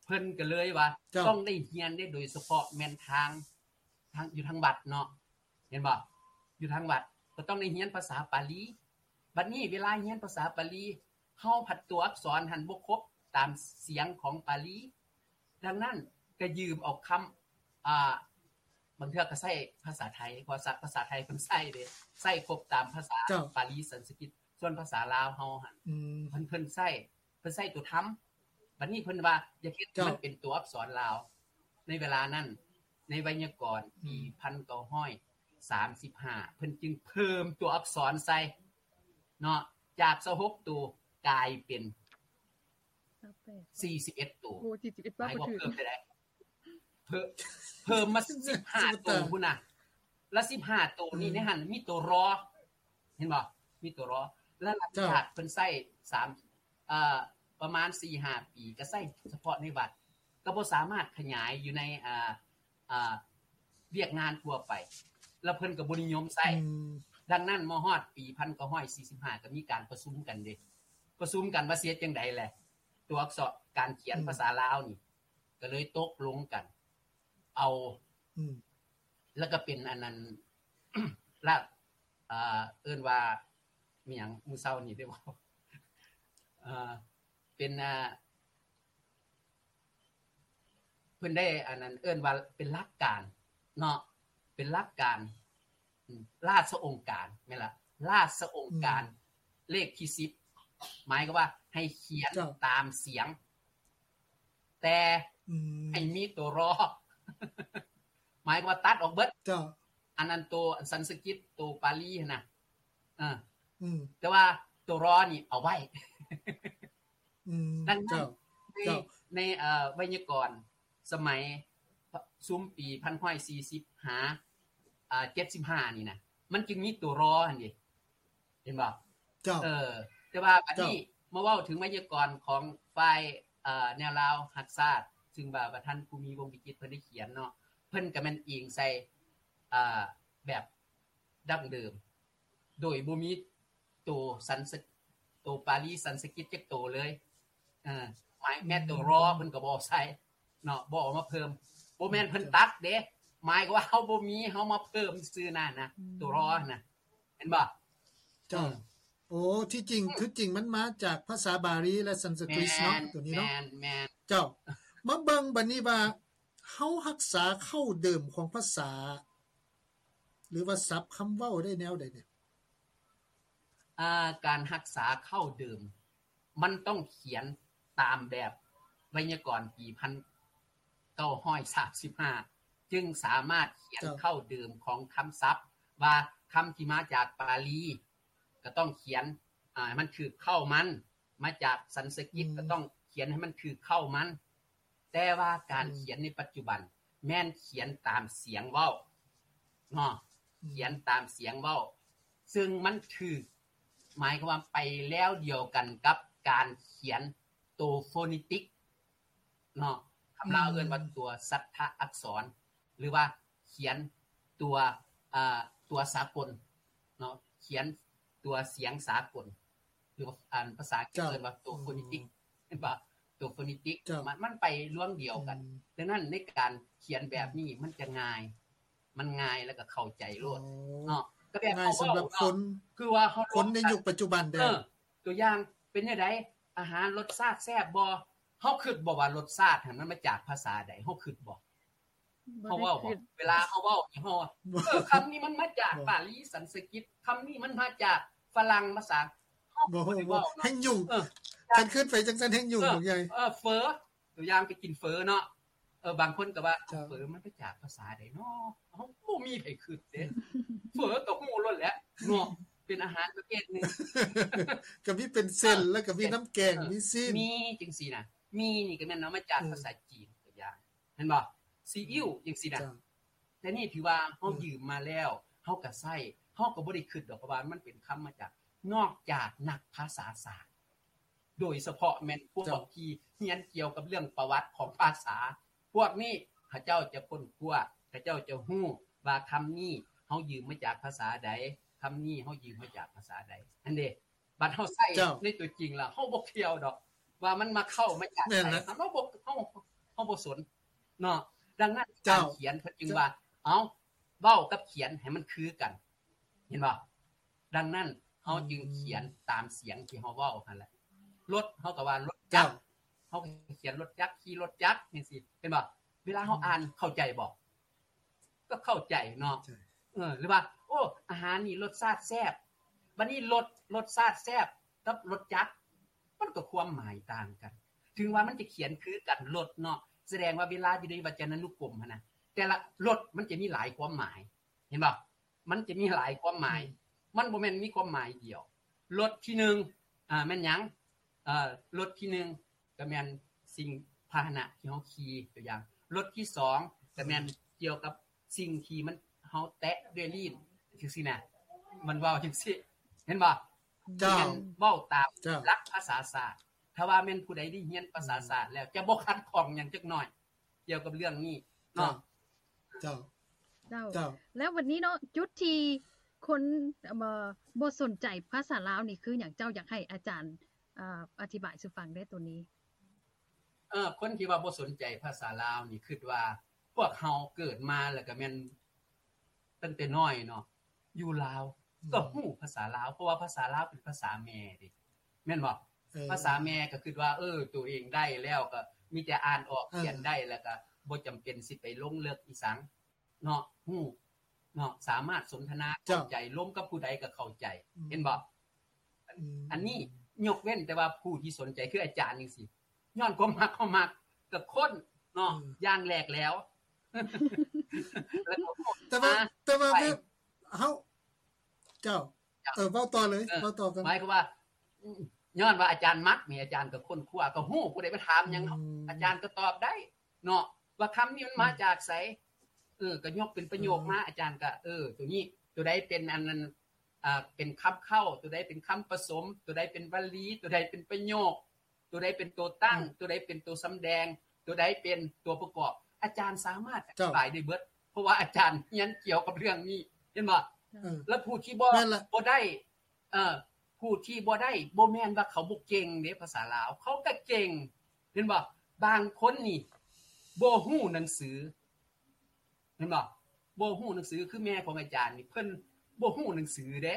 ເພິ່ນກໍເລີຍວ່າ ເຈົ້າ ຕ້ອງໄດ້ຮຽນເດ້ ໂດຍສະເພາະແມ່ນທາງ ທາງ ຢູ່ທາງວັດເນາະ ເຫັນບໍ່? ຢູ່ທາງວັດກໍຕ້ອງໄດ້ຮຽນພາສາປາລີ. ບັດນີ້ເວລາຮຽນພາສາປາລີ ເຮົາພັດຕົວອັກສອນຫັ້ນບໍ່ຄົບຕາມສຽງຂອງປາລີ. ດັ່ງນັ້ນກໍຢືມເອົາຄຳ ອ່າ ບາງເທື່ອກໍໃຊ້ພາສາໄທ ເພາະພາສາໄທເພິ່ນໃຊ້ເດ້ ໃຊ້ຄົບຕາມພາສາ ເຈົ້າ ປາລີສັນສະກິດ. ສ່ວນພາສາລາວເຮົາຫັ້ນ ອືມ ເພິ່ນ ເພິ່ນໃຊ້ ເພິ່ນໃຊ້ຕົວທຳ. ບັດນີ້ເພິ່ນວ່າຢາກເຮັດ ເຈົ້າ ໃຫ້ມັນເປັນຕົວອັກສອນລາວ ໃນເວລານັ້ນ ໃນໄວຍາກອນ ອືມ ປີພັນເກົ້າຮ້ອຍສາມສິບຫ້າ ເພິ່ນຈຶ່ງເພີ່ມຕົວອັກສອນໃສ່ເນາະ ຈາກຊາວຫົກໂຕກາຍເປັນ ຊາວແປດ ສີ່ສິບເອັດໂຕ. ໂອ້ ສີ່ສິບເອັດ ໝາຍຄວາມວ່າເພີ່ມເທົ່າໃດ? ເພີ່ມ ເພີ່ມມາສິບຫ້າໂຕພຸ້ນນະ ລະສິບຫ້າໂຕນີ້ ອືມ ໃນຫັ້ນມີຕົວ ຣ ເຫັນບໍ່? ມີຕົວ ຣ ລະຫຼັງຈາກເພິ່ນໃຊ້ສາມ ເອີ ປະມານສີ່ຫ້າປີ ກໍໃຊ້ສະເພາະໃນວັດ ກໍບໍ່ສາມາດຂະຫຍາຍຢູ່ໃນ ເອີ ເອີ ວຽກງານທົ່ວໄປ ລະເພິ່ນກໍບໍ່ນິຍົມໃຊ້. ອືມ ດັ່ງນັ້ນ ມາຮອດປີພັນເກົ້າຮ້ອຍສີ່ສິບຫ້າ ກໍມີການປະຊຸມກັນເດ້ ປະຊຸມກັນວ່າຊິເຮັດຈັ່ງໃດແຫຼະ ຕົວອັກສອນ ການຂຽນ ອືມ ພາສາລາວນີ້ ກໍເລີຍຕົກລົງກັນເອົາ ອືມ ແລ້ວກໍເປັນອັນນັ້ນ ລະ ເອີ ເອີ້ນວ່າ ມີຫຍັງ ມື້ເຊົ້ານີ້ໄດ້ເວົ້າ ເອີ ເປັນ ເອີ ເພິ່ນໄດ້ອັນນັ້ນ ເອີ້ນວ່າເປັນຫຼັກການເນາະ ເປັນຫຼັກການ ອາ ລາຊະອົງການ ແມ່ນລະ ລາຊະອົງການ ອືມ ເລກທີສິບ ໝາຍຄວາມວ່າໃຫ້ຂຽນ ເຈົ້າ ຕາມສຽງ ແຕ່ ອືມ ໃຫ້ມີຕົວ ຣ ໝາຍຄວາມວ່າຕັດອອກເບິດ ເຈົ້າ ນນັ້ນ ໂຕອັນສັນສະກິດ ໂຕປາລີຫັ້ນນະ ເອີ ອືມ ແຕ່ວ່າໂຕລໍນີ້ເອົາໄວ້ ອືມ ດັ່ງນັ້ນ ເຈົ້າ ໃນ ເຈົ້າ ໃນ ເອີ ໄວຍາກອນສະໄໝຊຸມປີພັນເກົ້າຮ້ອຍສີ່ສິບ ຫາ ອ່າ ເຈັດສິບຫ້ານີ້ນະ ມັນຈຶ່ງມີໂຕລໍຫັ້ນເດ ເຫັນບໍ່? ເຈົ້າ ເອີ ແຕ່ວ່າບັດນີ້ ເຈົ້າ ມາເວົ້າເຖິງໄວຍາກອນຂອງຝ່າຍ ເອີ ແນວລາວຮັກຊາດ ຊຶ່ງວ່າ ວ່າທ່ານ ພູມີ ວົງວິຈິດ ເພິ່ນໄດ້ຂຽນເນາະ ເພິ່ນກໍແມ່ນອີງໃສ່ ເອີ ແບບ ດັ້ງເດີມ ໂດຍບໍ່ມີໂຕສັນສະ ໂຕປາລີສັນສະກິດຈັກໂຕເລີຍ ເອີ ໝາຍແມ້ໂຕລໍເພິ່ນກໍບໍ່ໃສ່ເນາະ ບໍ່ເອົາມາເພີ່ມ ບໍ່ແມ່ນເພິ່ນຕັດເດ້ ໝາຍຄວາມວ່າເຮົາບໍ່ມີ ເຮົາມາເພີ່ມຊື່ນັ້ນນະ ອືມ ໂຕລໍນະ ເຫັນບໍ່? ເຈົ້າ ເອີ ໂອ້ ທີ່ຈິງ ຄືຈິງມັນມາຈາກພາສາບາລີ ແລະ ສັນສະກຣິດເນາະ ແມ່ນ ໂຕນີ້ເນາະ ແມ່ນ ແມ່ນ ເຈົ້າ ມາເບິ່ງບັດນີ້ວ່າ ເຮົາຮັກສາເຄົ້າເດີມຂອງພາສາ ຫຼືວ່າສັບຄຳເວົ້າໄດ້ແນວໃດແດ່? ອ່າ ການຮັກສາເຄົ້າເດີມ ມັນຕ້ອງຂຽນຕາມແບບໄວຍາກອນປີພັນເກົ້າຮ້ອຍສາມສິບຫ້າ ຈຶ່ງສາມາດຂຽນ ເຈົ້າ ເຄົ້າເດີມຂອງຄຳສັບ ວ່າຄຳທີ່ມາຈາກປາລີ ກໍຕ້ອງຂຽນ ອ່າ ໃຫ້ມັນຖືກເຄົ້າມັນ ມາຈາກສັນສະກິດ ອືມ ກໍຕ້ອງຂຽນໃຫ້ມັນຖືກເຄົ້າມັນ ແຕ່ວ່າການ ອືມ ຂຽນໃນປັດຈຸບັນ ແມ່ນຂຽນຕາມສຽງເວົ້າເນາະ ອືມ ຂຽນຕາມສຽງເວົ້າ ຊຶ່ງມັນຖືກ ໝາຍຄວາມວ່າໄປແນວດຽວກັນກັບການຂຽນໂຕໂຟນິຕິກເນາະ ຄຳລາວ ອືມ ເອີ້ນວ່າຕົວສັດທະອັກສອນ ຫຼືວ່າຂຽນຕົວ ອ່າ ຕົວສາກົນເນາະ ຂຽນຕົວສຽງສາກົນ ຫຼືວ່າ ອັນ ພາສາອັງກິດ ເຈົ້າ ເອີ້ນວ່າໂຕໂຟນິຕິກ ອືມ ເຫັນບໍ່? ໂຕໂຟນິຕິກ ເຈົ້າ ມັນ ມັນໄປລວງດຽວກັນ ອືມ ດັ່ງນັ້ນໃນການຂຽນແບບນີ້ ອືມ ມັນຈະງ່າຍ ມັນງ່າຍແລ້ວກໍເຂົ້າໃຈໂລດ ອໍ ເນາະ ກໍແບບ ງ່າຍສຳລັບຄົນ ຄືວ່າເຮົາ ຄົນໃນຍຸກປັດຈຸບັນເດ້ ເອີ ຕົວຢ່າງເປັນຈັ່ງໃດ? ອາຫານລົດຊາດແຊບບໍ່? ເຮົາຄິດບໍ່ວ່າລົດຊາດຫັ້ນມັນມາຈາກພາສາໃດ? ເຮົາຄິດບໍ່? ບໍ່ໄດ້ຄິດ ເຮົາເວົ້າບໍ່? ເວລາເຮົາເວົ້ານີ້ ເຮົາວ່າ ບໍ່ ເອີ ຄຳນີ້ມັນມາຈາກ ບໍ່ ປາລີສັນສະກິດ ຄຳນີ້ມັນມາຈາກຝຣັ່ງພາສາ ເຮົາບໍ່ໄດ້ເວົ້າເນາະ ແຮ່ງຫຍຸ້ງ ເອີ ຄັນຄິດໄປຈັ່ງຊັ້ນແຮ່ງຫຍຸ້ງ ເອີ ບັກໃຫຍ່ ເອີ ເຝີ ຕົວຢ່າງໄປກິນເຝີເນາະ ເອີ ບາງຄົນກໍວ່າ ເຈົ້າ ເຝີມັນມາຈາກພາສາໃດເນາະ? ເຮົາບໍ່ມີໃຜຄິດເດ້ ເຝີກໍຮູ້ໂລດແຫຼະເນາະ ເປັນອາຫານປະເພດໜຶ່ງ ກໍມີເປັນເສັ້ນ ເອີ ແລ້ວກໍມີ ເສັ້ນ ນ້ຳແກງ ເອີ ມີຊີ້ນ ມີຈັ່ງຊີ້ນະ ມີນີ້ກໍແມ່ນເອົາມາຈາກ ເອີ ພາສາຈີນ ຕົວຢ່າງ ເຫັນບໍ່? ຊີອິ້ວຈັ່ງຊີ້ນະ ເຈົ້າ ແຕ່ນີ້ຖືວ່າເຮົາ ເອີ ຢືມມາແລ້ວ ເຮົາກໍໃຊ້ ເຮົາກໍບໍ່ໄດ້ຄິດດອກວ່າມັນເປັນຄຳມາຈາກ ນອກຈາກນັກພາສາສາດ ໂດຍສະເພາະແມ່ນພວກ ເຈົ້າ ທີ່ຮຽນກ່ຽວກັບເລື່ອງປະຫວັດຂອງພາສາ ພວກນີ້ເຂົາເຈົ້າຈະຄົ້ນຄວ້າ ເຂົາເຈົ້າຈະຮູ້ວ່າຄຳນີ້ເຮົາຢືມມາຈາກພາສາໃດ ຄຳນີ້ເຮົາຢືມມາຈາກພາສາໃດ ຫັ້ນເດ້. ບັດເຮົາໃຊ້ ເຈົ້າ ໃນຕົວຈິງແລ້ວ ເຮົາບໍ່ກ່ຽວດອກວ່າມັນມາເຂົ້າມາຈາກໃສ ແມ່ນລະ ເຮົາບໍ່ ເຮົາ ເຮົາບໍ່ສົນເນາະ. ດັ່ງນັ້ນ ເຈົ້າ ການຂຽນເພິ່ນຈຶ່ງວ່າ ເອົ້າ ເວົ້າກັບຂຽນໃຫ້ມັນຄືກັນ ເຫັນບໍ່? ດັ່ງນັ້ນ ເຮົາ ອືມ ຈຶ່ງຂຽນຕາມສຽງທີ່ເຮົາເວົ້າຫັ້ນແຫຼະ. ລົດ ເຮົາກໍວ່າລົດຈັກ ເຈົ້າ ເຮົາກໍຂຽນລົດຈັກ ຂີ່ລົດຈັກ ຈັ່ງຊີ້ ເຫັນບໍ່? ເວລາເຮົາ ອືມ ອ່ານ ເຂົ້າໃຈບໍ່? ກໍເຂົ້າໃຈເນາະ ໃຊ່ ເອີ ຫຼືວ່າ ໂອ້ ອາຫານນີ້ລົດຊາດແຊບ ບັດນີ້ລົດ ລົດຊາດແຊບກັບລົດຈັກ ມັນກໍຄວາມໝາຍຕ່າງກັນ ເຖິງວ່າມັນຈະຂຽນຄືກັນ ລົດເນາະ ສະແດງວ່າເວລາຢູ່ໃນວັດຈະນານຸກົມຫັ້ນນະ ແຕ່ລະລົດມັນຈະມີຫຼາຍຄວາມໝາຍ ເຫັນບໍ່? ມັນຈະມີຫຼາຍຄວາມໝາຍ ອືມ ມັນບໍ່ແມ່ນມີຄວາມໝາຍດຽວ. ລົດທີໜຶ່ງ ອ່າ ແມ່ນຫຍັງ? ເອີ ລົດທີໜຶ່ງ ກໍແມ່ນສິ່ງພາຫະນະທີ່ເຮົາຂີ່ ຕົວຢ່າງ ລົດທີສອງ ກໍແມ່ນ ອືມ ກ່ຽວກັບສິ່ງທີ່ມັນ ເຮົາແຕະດ້ວຍລີ້ນ ຈັ່ງຊີ້ນະ ມັນເວົ້າຈັ່ງຊີ້ ເຫັນບໍ່? ເຈົ້າ ແມ່ນເວົ້າຕາມ ເຈົ້າ ຫຼັກພາສາສາດ. ຖ້າວ່າແມ່ນຜູ້ໃດໄດ້ຮຽນພາສາສາດແລ້ວ ອືມ ຈະບໍ່ຂັດຂ້ອງຫຍັງຈັກໜ້ອຍ ກ່ຽວກັບເລື່ອງນີ້ເນາະ. ເຈົ້າ ເຈົ້າ ເຈົ້າ ເຈົ້າ ແລ້ວວັນນີ້ເນາະ ຈຸດທີ່ຄົນ ເອີ ບໍ່ສົນໃຈພາສາລາວນີ້ຄືຫຍັງ? ເຈົ້າຢາກໃຫ້ອາຈານ ເອີ ອະທິບາຍສູ່ຟັງໄດ້ໂຕນີ້? ເອີ ຄົນທີ່ວ່າບໍ່ສົນໃຈພາສາລາວນີ້ ຄິດວ່າພວກເຮົາເກີດມາແລ້ວກໍແມ່ນ ຕັ້ງແຕ່ນ້ອຍເນາະ ຢູ່ລາວ ອືມ ກໍຮູ້ພາສາລາວ ເພາະວ່າພາສາລາວເປັນພາສາແມ່ເດ້ ແມ່ນບໍ່? ເອີ ພາສາແມ່ກໍຄິດວ່າ ເອີ ໂຕເອງໄດ້ແລ້ວ ກໍມີແຕ່ອ່ານອອກ ເອີ ຂຽນໄດ້ ແລ້ວກໍບໍ່ຈຳເປັນຊິໄປລົງເລິກອີ່ສັງເນາະ ຮູ້ເນາະ ສາມາດສົນທະນາ ເຈົ້າ ເຂົ້າໃຈ ລົມກັບຜູ້ໃດກໍເຂົ້າໃຈ ອືມ ເຫັນບໍ່? ອືມ ອັນນີ້ຍົກເວັ້ນແຕ່ວ່າຜູ້ທີ່ສົນໃຈ ຄືອາຈານຈັ່ງຊີ້ ຍ້ອນຄວາມມັກ ເຮົາມັກ ກໍຄົ້ນເນາະ ອືມ ຢ່າງແຫຼກແຫຼວ ແຕ່ວ່າ ແຕ່ວ່າເຮົາ ເຈົ້າ ເອີ ເວົ້າຕໍ່ເລີຍ ເອີ ເວົ້າຕໍ່ກັນ ໝາຍຄວາມວ່າ ອ- ຍ້ອນວ່າອາຈານມັກນີ້ ອາຈານກໍຄົ້ນຄວ້າ ກໍຮູ້ ຜູ້ໃດມາຖາມຫຍັງ ອາຈານກໍຕອບໄດ້ເນາະ ວ່າຄຳນີ້ມັນມາຈາກໃສ. ເອີ ກໍຍົກເປັນປະໂຫຍກມາ ອາຈານກໍ ເອີ ໂຕນີ້ ໂຕໃດເປັນອັນນັ້ນ ອ່າ ເປັນຄຳເຄົ້າ ໂຕໃດເປັນຄຳປະສົມ ໂຕໃດເປັນວະລີ ໂຕໃດເປັນປະໂຫຍກ ໂຕໃດເປັນໂຕຕັ້ງ ໂຕໃດເປັນໂຕສຳແດງ ໂຕໃດເປັນຕົວປະກອບ ອາຈານສາມາດອະທິບາຍໄດ້ເບິດ ເພາະວ່າອາຈານຮຽນກ່ຽວກັບເລື່ອງນີ້ ເຫັນບໍ່? ແລ້ວຜູ້ທີ່ບໍ່ ບໍ່ໄດ້ ເອີ ຜູ້ທີ່ບໍ່ໄດ້ ບໍ່ແມ່ນວ່າເຂົາບໍ່ເກັ່ງເດ້ ພາສາລາວ ເຂົາກໍເກັ່ງ ເຫັນບໍ່? ບາງຄົນນີ້ບໍ່ຮູ້ໜັງສື ເຫັນບໍ່? ບໍ່ຮູ້ໜັງສື ຄືແມ່ຂອງອາຈານນີ້ ເພິ່ນບໍ່ຮູ້ໜັງສືເດ້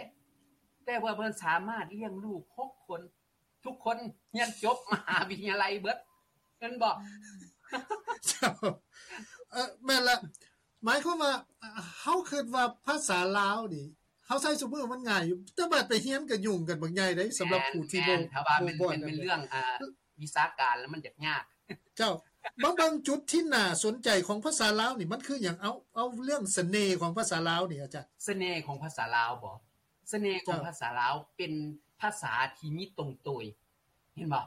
ແຕ່ວ່າເພິ່ນສາມາດລ້ຽງລູກຫົກຄົນ ທຸກຄົນຮຽນຈົບມະຫາວິທະຍາໄລເບິດ ແມ່ນບໍ່? ເຈົ້າ ເອີ ແມ່ນລະ ໝາຍຄວາມວ່າ ເຮົາຄິດວ່າພາສາລາວນີ້ ເຮົາໃຊ້ຊຸມື້ມັນງ່າຍຢູ່ ແຕ່ບາດໄປຮຽນກໍຫຍຸ້ງກັນບັກໃຫຍ່ເດ້ ສຳລັບຜູ້ທີ່ບໍ່ ແມ່ນ ແມ່ນ ຖ້າວ່າແມ່ນ ແມ່ນເລື່ອງ ອ່າ ວິຊາການແລ້ວມັນຈະຍາກ. ເຈົ້າ ມາເບິ່ງຈຸດທີ່ໜ້າສົນໃຈຂອງພາສາລາວນີ້ ມັນຄືຫຍັງ? ເອົາ ເອົາເລື່ອງສະເໜ່ຂອງພາສາລາວນີ້ ອາຈານ. ສະເໜ່ຂອງພາສາລາວບໍ? ສະເໜ່ຂອງພາສາລາວເປັນພາສາທີ່ມີຕົງໂຕຍ ເຫັນບໍ່?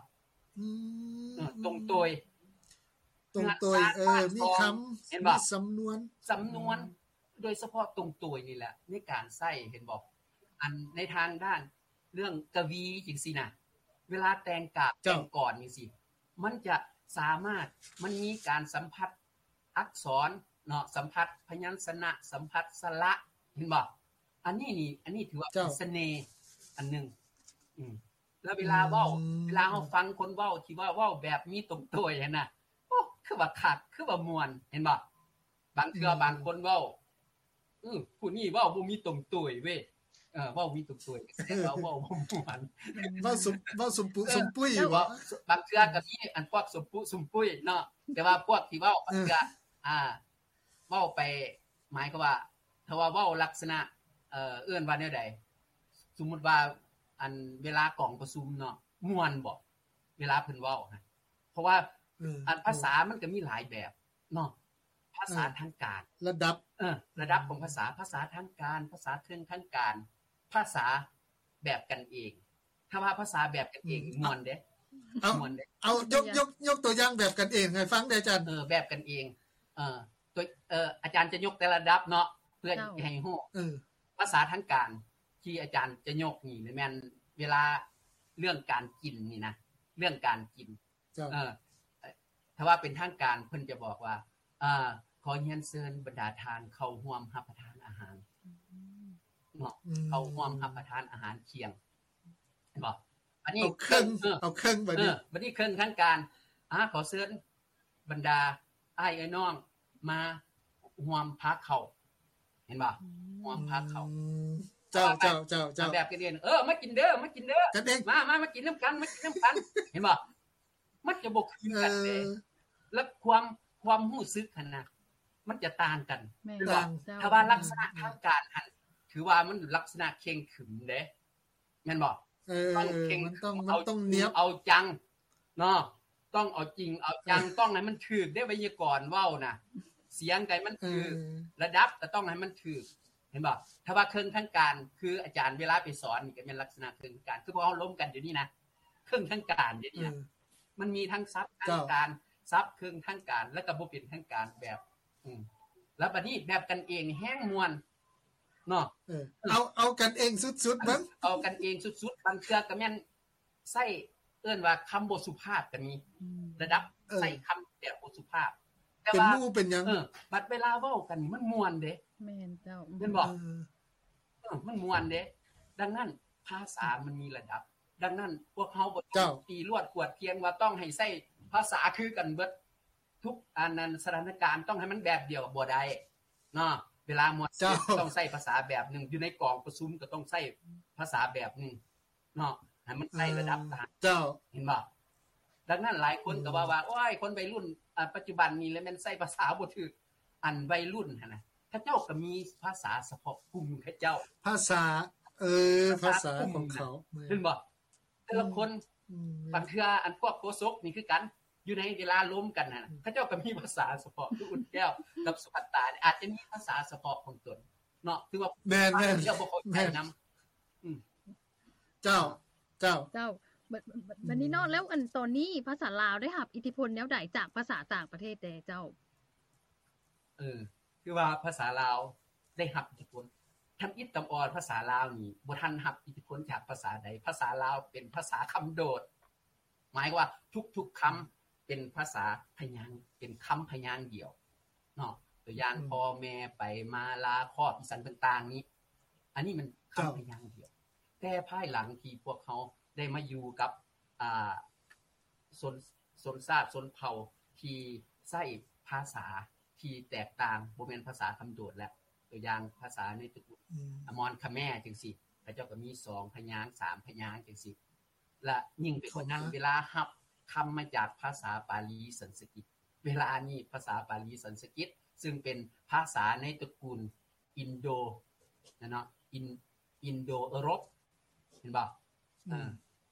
ອືມ ເອີ ຕົງໂຕຍ ຕົງໂຕຍ ເອີ ມີຄຳ ເຫັນບໍ່? ມີສຳນວນ ສຳນວນ ໂດຍສະເພາະຕົງໂຕຍນີ້ແຫຼະ ໃນການໃຊ້ ເຫັນບໍ່? ອັນໃນທາງດ້ານເລື່ອງກະວີຈັ່ງຊີ້ນະ ເວລາແຕ່ງກາບ ແຕ່ງກອນຈັ່ງຊີ້ ມັນຈະສາມາດ ມັນມີການສຳຜັດອັກສອນເນາະ ສຳຜັດພະຍັນຊະນະ ສຳຜັດສະຫຼະ ເຫັນບໍ່? ອັນນີ້ນີ້ ອັນນີ້ຖືວ່າເປັນສະເໜ່ອັນໜຶ່ງ ອືມ ແລ້ວເວລາເວົ້າ ເວລາເຮົາຟັງຄົນເວົ້າທີ່ວ່າເວົ້າແບບມີຕົງໂຕຍຫັ້ນນະ ໂອ້ ຄືວ່າຄັກ ຄືວ່າມ່ວນ ເຫັນບໍ່? ບາງເທື່ອບາງຄົນເວົ້າ ອື ຜູ້ນີ້ເວົ້າບໍ່ມີຕົງໂຕຍເວີຍ ເອີ ເວົ້າມີຕົງໂຕຍ ແຕ່ວ່າເວົ້າບໍ່ມ່ວນ ເວົ້າສົມ ເວົ້າສົມປຸ ເອີ ສົມປຸຍ ເວົ້າ ບາງເທື່ອກໍມີອັນພວກສົມປຸສົມປຸຍເນາະ ແຕ່ວ່າພວກທີ່ເວົ້າບາງເທື່ອ ອ່າ ເວົ້າໄປ ໝາຍຄວາມວ່າ ຖ້າວ່າເວົ້າລັກສະນະ ເອີ ເອີ້ນວ່າແນວໃດ? ສົມມຸດວ່າ ອັນເວລາກອງປະຊຸມເນາະ ມ່ວນບໍ? ເວລາເພິ່ນເວົ້າຫັ້ນ ເພາະວ່າ ເອີ ອັນພາສາມັນກໍມີຫຼາຍແບບເນາະ ພາສາທາງການ ລະດັບ ເອີ ລະດັບຂອງພາສາ ພາສາທາງການ ພາສາເທິງທາງການ ພາສາແບບກັນເອງ ຖ້າວ່າພາສາແບບກັນເອງ ມ່ວນເດ້ ມ່ວນເດ້ ເອົາ ຍົກ ຍົກ ຍົກຕົວຢ່າງແບບກັນເອງໃຫ້ຟັງແດ່ອາຈານ. ເອີ ແບບກັນເອງ ເອີ ຕົວ ເອີ ອາຈານຈະຍົກແຕ່ລະລະດັບເນາະ ເພື່ອໃຫ້ຮູ້ ເອີ ພາສາທາງການທີ່ອາຈານຈະຍົກນີ້ແມ່ນເວລາເລື່ອງການກິນນີ້ນະ ເລື່ອງການກິນ ເອີ ຖ້າວ່າເປັນທາງການເພິ່ນຈະບອກວ່າ ເອີ ຂໍຮຽນເຊີນບັນດາທ່ານເຂົ້າຮ່ວມຮັບປະທານອາຫານເນາະ ເຂົ້າຮ່ວມຮັບປະທານອາຫານທ່ຽງ ເຫັນບໍ່? ບັດນີ້ເອົາເຄິ່ງ ເອີ ເອົາເຄິ່ງ ບັດນີ້ ເອີ ບັດນີ້ເຄິ່ງທາງການ ອາ ຂໍເຊີນບັນດາອ້າຍເອື້ອຍນ້ອງມາຮ່ວມພາເຂົ້າ ເຫັນບໍ່? ຮ່ວມພາເຂົ້າ ເຈົ້າ ເຈົ້າ ເຈົ້າ ເຈົ້າ ແບບກັນເອງ ເອີ ມາກິນເດີ ມາກິນເດີ ກັນເອງ ມາ ມາ ມາກິນນຳກັນ ມາກິນນຳກັນ ເຫັນບໍ່? ມັນຈະບໍ່ຄືກັນເດ້ ແລະ ຄວາມ ຄວາມຮູ້ສຶກຫັ້ນນະ ມັນຈະຕ່າງກັນ ແມ່ນບໍ່? ຖ້າວ່າລັກສະນະທາງການຫັ້ນ ຖືວ່າມັນລັກສະນະເຄັ່ງຂຶມເດ້ ແມ່ນບໍ່? ເອີ ຕ້ອງເຄັ່ງ ມັນຕ້ອງ ມັນຕ້ອງນຽບ ເອົາຈິງເອົາຈັງເນາະ ຕ້ອງເອົາຈິງເອົາຈັງ ຕ້ອງໃຫ້ມັນຖືກເດ້ ໄວຍາກອນເວົ້ານະ ສຽງໃດມັນຖືກ ລະດັບກໍຕ້ອງໃຫ້ມັນຖືກ ເຫັນບໍ່? ຖ້າວ່າເຄິ່ງທາງການ ຄືອາຈານເວລາໄປສອນນີ້ ກໍແມ່ນລັກສະນະເຄິ່ງທາງການ ຄືພວກເຮົາລົມກັນຢູ່ນີ້ນະ ເຄິ່ງທາງການເດນີ້ນະ ມັນມີທັງສັບທາງການ ສັບເຄິ່ງທາງການ ແລ້ວກໍບໍ່ເປັນທາງການແບບ ອືມ ແລ້ວບັດນີ້ແບບກັນເອງແຮງມ່ວນເນາະ ເອີ ເອົາ ເອົາກັນເອງສຸດໆ ເບິ່ງ ເອົາກັນເອງສຸດໆ ບາງເທື່ອກໍແມ່ນໃຊ້ ເອີ້ນວ່າຄຳບໍ່ສຸພາບກໍມີ ລະດັບໃຊ້ຄຳແບບບໍ່ສຸພາບ ແຕ່ວ່າເປັນໝູ່ເປັນຫຍັງ ເອີ ບັດເວລາເວົ້າກັນນີ້ມັນມ່ວນເດ້ ແມ່ນເຈົ້າ ແມ່ນບໍ່? ເອີ ເອີ ມັນມ່ວນເດ້ ດັ່ງນັ້ນພາສາມັນມີລະດັບ ດັ່ງນັ້ນພວກເຮົາບໍ່ຕ້ອງຕີລວດກວດກຽງວ່າຕ້ອງໃຫ້ໃຊ້ພາສາຄືກັນເບິດ ທຸກອັນນັ້ນ ສະຖານະການຕ້ອງໃຫ້ມັນແບບດຽວ ບໍ່ໄດ້ເນາະ ເວລາມ່ວນຊື່ນຕ້ອງໃຊ້ພາສາແບບໜຶ່ງ ຢູ່ໃນກອງປະຊຸມກໍຕ້ອງໃຊ້ພາສາແບບໜຶ່ງ ເນາະ ໃຫ້ມັນໃຊ້ລະດັບ ເອີ ເຈົ້າ ເຫັນບໍ່? ດັ່ງນັ້ນຫຼາຍຄົນກໍເວົ້າວ່າ ອືມ ໂອ້ຍ ຄົນໄວລຸ້ນ ອາ ປັດຈຸບັນນີ້ລະແມ່ນໃຊ້ພາສາບໍ່ຖືກ ອັນໄວລຸ້ນຫັ້ນນະ ເຂົາເຈົ້າກໍມີພາສາສະເພາະກຸ່ມເຂົາເຈົ້າ ພາສາ ເອີ ພາສາຂອງເຂົາ ເຫັນບໍ່? ແຕ່ລະຄົນ ອືມ ບາງເທື່ອອັນພວກໂຄສົກນີ້ຄືກັນ ຢູ່ໃນເວລາລົມກັນຫັ້ນນະ ເຂົາເຈົ້າກໍມີພາສາສະເພາະ ຄືອຸ່ນແກ້ວກັບສຸພັດຕາ ອາດຈະມີພາສາສະເພາະຂອງຕົນເນາະ ຖືວ່າແມ່ນໆ ເຈົ້າບໍ່ເຂົ້າໃຈນຳ. ອືມ ເຈົ້າ ເຈົ້າ ເຈົ້າ ບັດ ບັດ ບັດນີ້ເນາະ ອືມ ແລ້ວອັນຕອນນີ້ພາສາລາວໄດ້ຮັບອິດທິພົນແນວໃດຈາກພາສາຕ່າງປະເທດແດ່ເຈົ້າ? ເອີ ຄືວ່າພາສາລາວໄດ້ຮັບອິດທິພົນ ທຳອິດຕຳອອນພາສາລາວນີ້ບໍ່ທັນຮັບອິດທິພົນຈາກພາສາໃດ. ພາສາລາວເປັນພາສາຄຳໂດດ ໝາຍຄວາມວ່າທຸກໆຄຳ ອືມ ເປັນພາສາພະຍາງ ເປັນຄຳພະຍາງດຽວເນາະ. ຕົວຢ່າງ ອືມ ພໍ່ແມ່ ໄປ ມາ ລາ ຄອບ ອີ່ສັງຕ່າງໆນີ້ ອັນນີ້ມັນຄຳ ເຈົ້າ ພະຍາງດຽວ. ແຕ່ພາຍຫຼັງທີ່ພວກເຮົາໄດ້ມາຢູ່ກັບ ອ່າ ຊົນ ຊົນຊາດຊົນເຜົ່າທີ່ໃຊ້ພາສາທີ່ແຕກຕ່າງ ບໍ່ແມ່ນພາສາຄຳໂດດແລ້ວ. ຕົວຢ່າງພາສາໃນຕະກຸນ ອືມ ອາມອນຂະແມຈັ່ງຊີ້ ເຂົາເຈົ້າກໍມີສອງພະຍາງ ສາມພະຍາງຈັ່ງຊີ້. ແລະ ຍິ່ງໄປກວ່ານັ້ນ ເຂົ້າມາ ເວລາຮັບຄຳມາຈາກພາສາປາລີສັນສະກິດ ເວລານີ້ພາສາປາລີສັນສະກິດ ຊຶ່ງເປັນພາສາໃນຕະກຸນອິນໂດນະເນາະ ອິນ ອິນໂດເອີຣົບ ເຫັນບໍ່? ອືມ ເອີ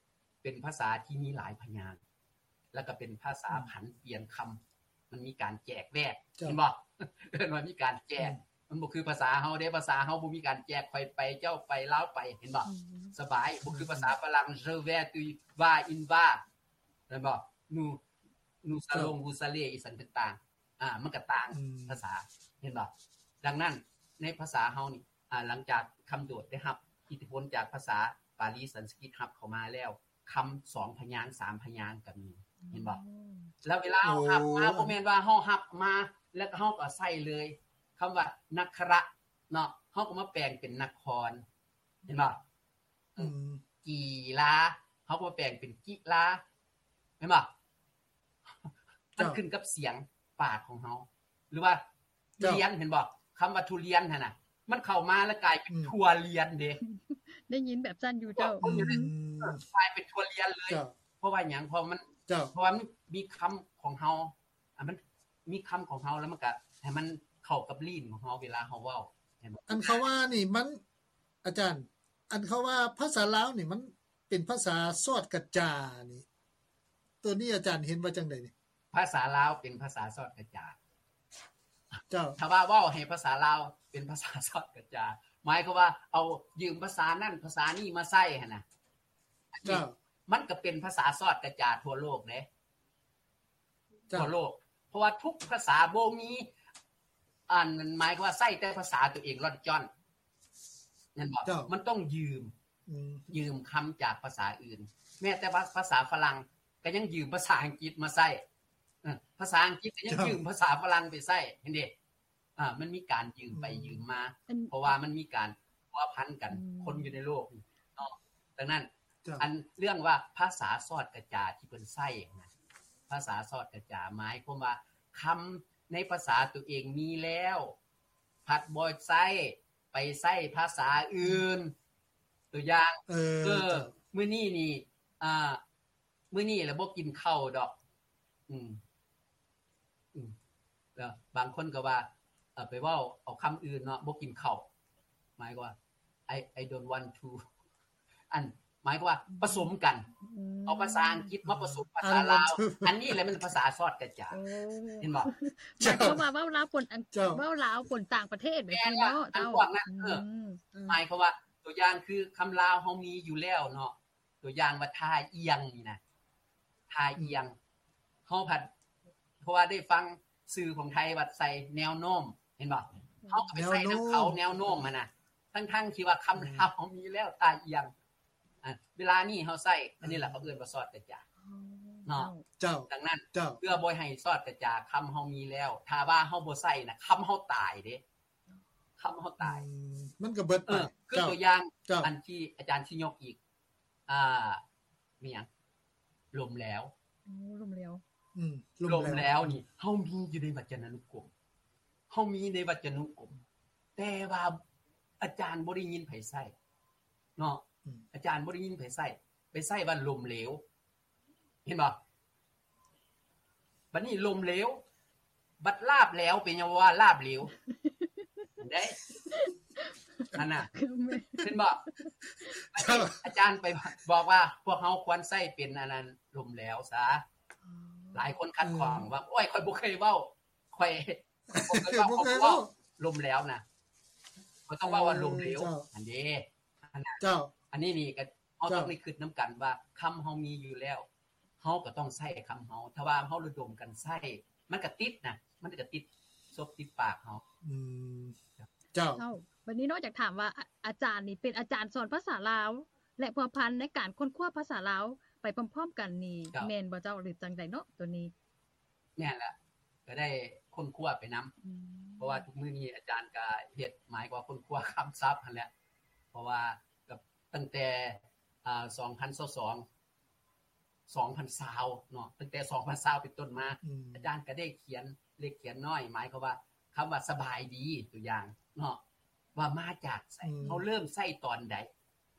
ເປັນພາສາທີ່ມີຫຼາຍພະຍາງ ແລ້ວກໍເປັນພາສາ ອືມ ຜັນປ່ຽນຄຳ ມັນມີການແຈກແວກ ເຈົ້າ ເຫັນບໍ່? ເອີ້ນວ່າມີການແຈກ ອືມ ມັນບໍ່ຄືພາສາເຮົາເດ້ ພາສາເຮົາບໍ່ມີການແຈກ ຂ້ອຍໄປ ເຈົ້າໄປ ລາວໄປ ເຫັນບໍ່? ອືມ ສະບາຍ ບໍ່ຄືພາສາຝຣັ່ງ je vais, tu vas, il va ແມ່ນບໍ່? nous nous allons, vous allez ອີ່ສັງຕ່າງໆ ອ່າ ມັນກໍຕ່າງ ອືມ ພາສາ ເຫັນບໍ່? ດັ່ງນັ້ນ ໃນພາສາເຮົານີ້ ອ່າ ຫຼັງຈາກຄຳໂດດໄດ້ຮັບອິດທິພົນຈາກພາສາປາລີສັນສະກິດຮັບເຂົ້າມາແລ້ວ ຄຳສອງພະຍາງ ສາມພະຍາງກໍມີ ເຫັນບໍ່? ອືມ ແລ້ວເວລາເຮົາຮັບມາ ໂອ້ ບໍ່ແມ່ນວ່າເຮົາຮັບມາ ແລ້ວກໍເຮົາກໍໃຊ້ເລີຍ. ຄຳວ່າ ນະຄະຣະ ເນາະ ເຮົາກໍມາແປງເປັນ ນະຄອນ ເຫັນບໍ່? ອືມ ອືມ ກີລາ ເຮົາກໍມາແປງເປັນ ກິລາ ເຫັນບໍ່? ມັນ ເຈົ້າ ຂຶ້ນກັບສຽງປາກຂອງເຮົາ ຫຼືວ່າ ເຈົ້າ ລຽນ ເຫັນບໍ່? ຄຳວ່າທຸລຽນຫັ້ນນະ ມັນເຂົ້າມາແລ້ວກາຍເປັນ ອືມ ທົ່ວລຽນເດ້. ໄດ້ຍິນແບບຊັ້ນຢູ່ເຈົ້າ. ອືມ ເອີ ກາຍເປັນທົ່ວລຽນເລີຍ. ເຈົ້າ ເພາະວ່າຫຍັງ? ເພາະມັນ ເຈົ້າ ເພາະວ່າມັນມີຄຳຂອງເຮົາ ອ່າ ມັນມີຄຳຂອງເຮົາ ແລ້ວມັນກະໃຫ້ມັນເຂົ້າກັບລີ້ນຂອງເຮົາເວລາເຮົາເວົ້າ ເຫັນບໍ່? ອັນເຂົາວ່ານີ້ມັນ ອາຈານ ອັນເຂົາວ່າພາສາລາວນີ້ມັນເປັນພາສາຊອດກະຈານີ້ ໂຕນີ້ອາຈານເຫັນວ່າຈັ່ງໃດນີ້? ພາສາລາວເປັນພາສາຊອດກະຈາ. ເຈົ້າ ຖ້າວ່າເວົ້າໃຫ້ພາສາລາວເປັນພາສາຊອດກະຈາ ໝາຍຄວາມວ່າເອົາຢືມພາສານັ້ນພາສານີ້ມາໃຊ້ຫັ້ນນະ. ເຈົ້າ ມັນກໍເປັນພາສາຊອດກະຈາທົ່ວໂລກເດ້. ເຈົ້າ ທົ່ວໂລກ ເພາະວ່າທຸກພາສາບໍ່ມີ ອັນ ໝາຍຄວາມວ່າໃຊ້ແຕ່ພາສາຕົວເອງລ່ອນຈ້ອນ ແມ່ນບໍ່? ເຈົ້າ ມັນຕ້ອງຢືມ ອືມ ຢືມຄຳຈາກພາສາອື່ນ. ແມ້ແຕ່ວ່າພາສາຝຣັ່ງກໍຍັງຢືມພາສາອັງກິດມາໃຊ້ ເອີ ພາສາອັງກິດກໍຍັງ ເຈົ້າ ຢືມພາສາຝຣັ່ງໄປໃຊ້ ເຫັນເດ້? ອ່າ ມັນມີການຢືມໄປ ອືມ ຢືມມາ ອັນ ເພາະວ່າມັນມີການພົວພັນກັນ ອືມ ຄົນຢູ່ໃນໂລກນີ້ເນາະ. ດັ່ງນັ້ນ ເຈົ້າ ອັນເລື່ອງວ່າພາສາຊອດກະຈາທີ່ເພິ່ນໃຊ້ນະ ພາສາຊອດກະຈາ ໝາຍຄວາມວ່າຄຳໃນພາສາຕົວເອງມີແລ້ວ ພັດບໍ່ໃຊ້ ໄປໃຊ້ພາສາອື່ນ. ຕົວຢ່າງ ເອີ ເອີ ເຈົ້າ ມື້ນີ້ນີ້ ອ່າ ມື້ນີ້ລະບໍ່ກິນເຂົ້າດອກ ອືມ ອືມ ແລ້ວບາງຄົນກໍວ່າ ເອີ ໄປເວົ້າເອົາຄຳອື່ນເນາະ ບໍ່ກິນເຂົ້າ ໝາຍຄວາມວ່າ I I don't want to ອັນ ໝາຍຄວາມວ່າປະສົມກັນ ອືມ ເອົາພາສາອັງກິດມາປະສົມພາສາລາວ I don't want to ອັນນີ້ແຫຼະແມ່ນພາສາຊອດກະຈາ ໂອ້ ເຫັນບໍ່? ໝາຍຄວາມວ່າເວົ້າລາວປົນອັງ ເຈົ້າ ເວົ້າລາວປົນຕ່າງປະເທດແບບນີ້ເນາະ ເຈົ້າ ອັນພວກນັ້ນ ເອີ ອືມ ໝາຍຄວາມວ່າ ຕົວຢ່າງຄືຄຳລາວເຮົາມີຢູ່ແລ້ວເນາະ ຕົວຢ່າງວ່າທ່າອ່ຽງນີ້ນະ ທ່າອ່ຽງ ເຮົາພັດ ເພາະວ່າໄດ້ຟັງຊື່ຂອງໄທວ່າໃສ່ແນວໂນ້ມ ເຫັນບໍ່? ເຮົາກໍໄປໃສ່ນຳເຂົາ ແນວໂນ້ມ ແນວໂນ້ມຫັ້ນນະ ທັງໆທີ່ວ່າຄຳລາວເຮົາມີແລ້ວ ທ່າອ່ຽງ. ອ່າ ເວລານີ້ເຮົາໃຊ້ ອັນນີ້ແຫຼະເຂົາເອີ້ນວ່າຊອດກະຈາ ອໍ ເນາະ ເຈົ້າ ດັ່ງນັ້ນ ເຈົ້າ ເພື່ອບໍ່ໃຫ້ຊອດກະຈາ ຄຳເຮົາມີແລ້ວ ຖ້າວ່າເຮົາບໍ່ໃຊ້ນະ ຄຳເຮົາຕາຍເດ້ ຄຳເຮົາຕາຍ ອືມ ມັນກໍເບິດໄປ ເອີ ຄື ເຈົ້າ ຕົວຢ່າງ ເຈົ້າ ອັນທີ່ອາຈານຊິຍົກອີກ ອ່າ ມີຫຍັງ? ລົມແລ້ວ ໂອ້ ລົມແລ້ວ ອືມ ລົມແລ້ວ ລົມແລ້ວນີ້ ເຮົາມີຢູ່ໃນວັດຈະນານຸກົມ ເຮົາມີໃນວັດຈະນຸກົມ ແຕ່ວ່າອາຈານບໍ່ໄດ້ຍິນໃຜໃຊ້ເນາະ ອືມ ອາຈານບໍ່ໄດ້ຍິນໃຜໃຊ້ ໄປໃຊ້ວ່າລົມເຫຼວ ເຫັນບໍ່? ບັດນີ້ລົມເຫຼວ ບັດລາບແຫຼວ ເປັນຫຍັງວ່າລາບເຫຼວ ເດ້ ອັນນ່າ ເຫັນບໍ່? ເຈົ້າ ອາຈານໄປບອກວ່າ ພວກເຮົາຄວນໃຊ້ເປັນອັນນັ້ນ ລົມແຫຼວຊະ ອໍ ຫຼາຍຄົນຂັດຂ້ອງວ່າ ໂອ້ຍ ຂ້ອຍບໍ່ເຄີຍເວົ້າ ຂ້ອຍບໍ່ເຄີຍເວົ້າ ບໍ່ເຄີຍເວົ້າ ລົ້ມແຫຼວນະ ບໍ່ຕ້ອງເວົ້າວ່າລົ້ມເຫຼວ ເອີ ເຈົ້າ ອັນເດ້ ເຈົ້າ ອັນນີ້ນີ້ກໍ ເຮົາຕ້ອງໄດ້ຄິດນຳກັນວ່າ ຄຳເຮົາມີຢູ່ແລ້ວ ເຮົາກໍຕ້ອງໃຊ້ຄຳເຮົາ ຖ້າວ່າເຮົາລະດົມກັນໃຊ້ ມັນກໍຕິດນະ ມັນກໍຕິດສົບຕິດປາກເຮົາ ອືມ ເຈົ້າ ເຈົ້າ ບັດນີ້ເນາະ ຢາກຖາມວ່າ ອາ ອາຈານນີ້ເປັນອາຈານສອນພາສາລາວ ແລະ ພົວພັນໃນການຄົ້ນຄວ້າພາສາລາວໄປພ້ອມໆກັນນີ້ ເຈົ້າ ແມ່ນບໍ່ເຈົ້າ ຫຼື ຈັ່ງໃດເນາະ ໂຕນີ້? ແມ່ນລະ ກໍໄດ້ຄົ້ນຄວ້າໄປນຳ ອືມ ເພາະວ່າທຸກມື້ນີ້ອາຈານກໍເຮັດ ໝາຍຄວາມວ່າຄົ້ນຄວ້າຄຳສັບຫັ້ນແຫຼະ ເພາະວ່າກໍຕັ້ງແຕ່ ອາ ສອງພັນຊາວສອງ ສອງພັນຊາວເນາະ ຕັ້ງແຕ່ສອງພັນຊາວເປັນຕົ້ນມາ ອືມ ອາຈານກໍໄດ້ຂຽນເລັກຂຽນນ້ອຍ ໝາຍຄວາມວ່າ ຄຳວ່າສະບາຍດີ ຕົວຢ່າງເນາະ ວ່າມາຈາກໃສ ອືມ ເຮົາເລີ່ມໃຊ້ຕອນໃດ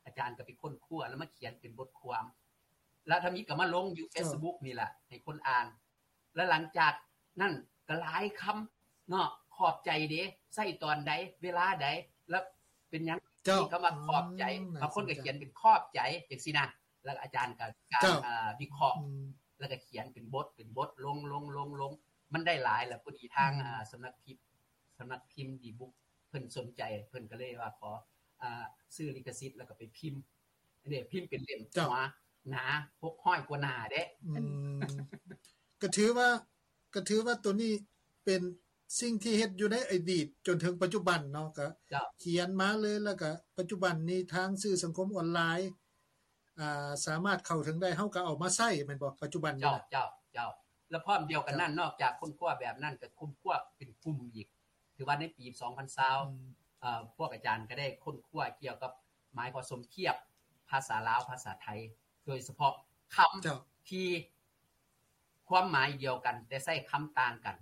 ອາຈານກໍໄປຄົ້ນຄວ້າ ແລ້ວມາຂຽນເປັນບົດຄວາມ ແລ້ວທຳອິດກໍມາລົງຢູ່ ເຈົ້າ ເຟສບຸກນີ້ລະ ໃຫ້ຄົນອ່ານ ແລ້ວຫຼັງຈາກນັ້ນກໍຫຼາຍຄຳເນາະ ຂອບໃຈເດ ໃຊ້ຕອນໃດ ເວລາໃດ ແລ້ວເປັນຫຍັງ ເຈົ້າ ມີຄຳວ່າຂອບໃຈ ອືມ ບາງຄົນກໍຂຽນເປັນຂອບໃຈ ຈັ່ງຊີ້ນະ ແລ້ວອາຈານກໍການ ເຈົ້າ ເອີ ວິເຄາະ ອືມ ແລ້ວກໍຂຽນເປັນບົດ ເປັນບົດ ລົງ ລົງ ລົງ ລົງ ມັນໄດ້ຫຼາຍ ແລ້ວພໍດີທາງ ອືມ ອາ ສຳນັກພິມ ສຳນັກພິມດີບຸກ ເພິ່ນສົນໃຈ ເພິ່ນກໍເລີຍວ່າຂໍ ອາ ຊື້ລິຂະສິດ ແລ້ວກໍໄປພິມ ອັນນີ້ພິມເປັນເຫຼັ້ມ ເຈົ້າ ໜາ ຫົກຮ້ອຍກວ່າໜ້າເດ້ ອືມ ກໍຖືວ່າ ກໍຖືວ່າໂຕນີ້ເປັນສິ່ງທີ່ເຮັດຢູ່ໃນອະດີດຈົນເຖິງປັດຈຸບັນເນາະ ກໍ ເຈົ້າ ຂຽນມາເລີຍ ແລ້ວກໍປັດຈຸບັນນີ້ທາງສື່ສັງຄົມອອນລາຍ ອ່າ ສາມາດເຂົ້າເຖິງໄດ້ ເຮົາກໍເອົາມາໃຊ້ແມ່ນບໍ່ ປັດຈຸບັນນີ້ນະ? ເຈົ້າ ເຈົ້າ ເຈົ້າ ແລ້ວພ້ອມດຽວກັນນັ້ນ ເຈົ້າ ນອກຈາກຄົ້ນຄວ້າແບບນັ້ນ ກໍຄົ້ນຄວ້າເປັນກຸ່ມອີກ ຖືວ່າໃນປີສອງພັນຊາວ ອືມ ເອີ ພວກອາຈານກໍໄດ້ຄົ້ນຄວ້າກ່ຽວກັບ ໝາຍຄວາມສົມທຽບພາສາລາວ ພາສາໄທ ໂດຍສະເພາະຄຳ ເຈົ້າ ທີ່ຄວາມໝາຍດຽວກັນ ແຕ່ໃຊ້ຄຳຕ່າງກັນ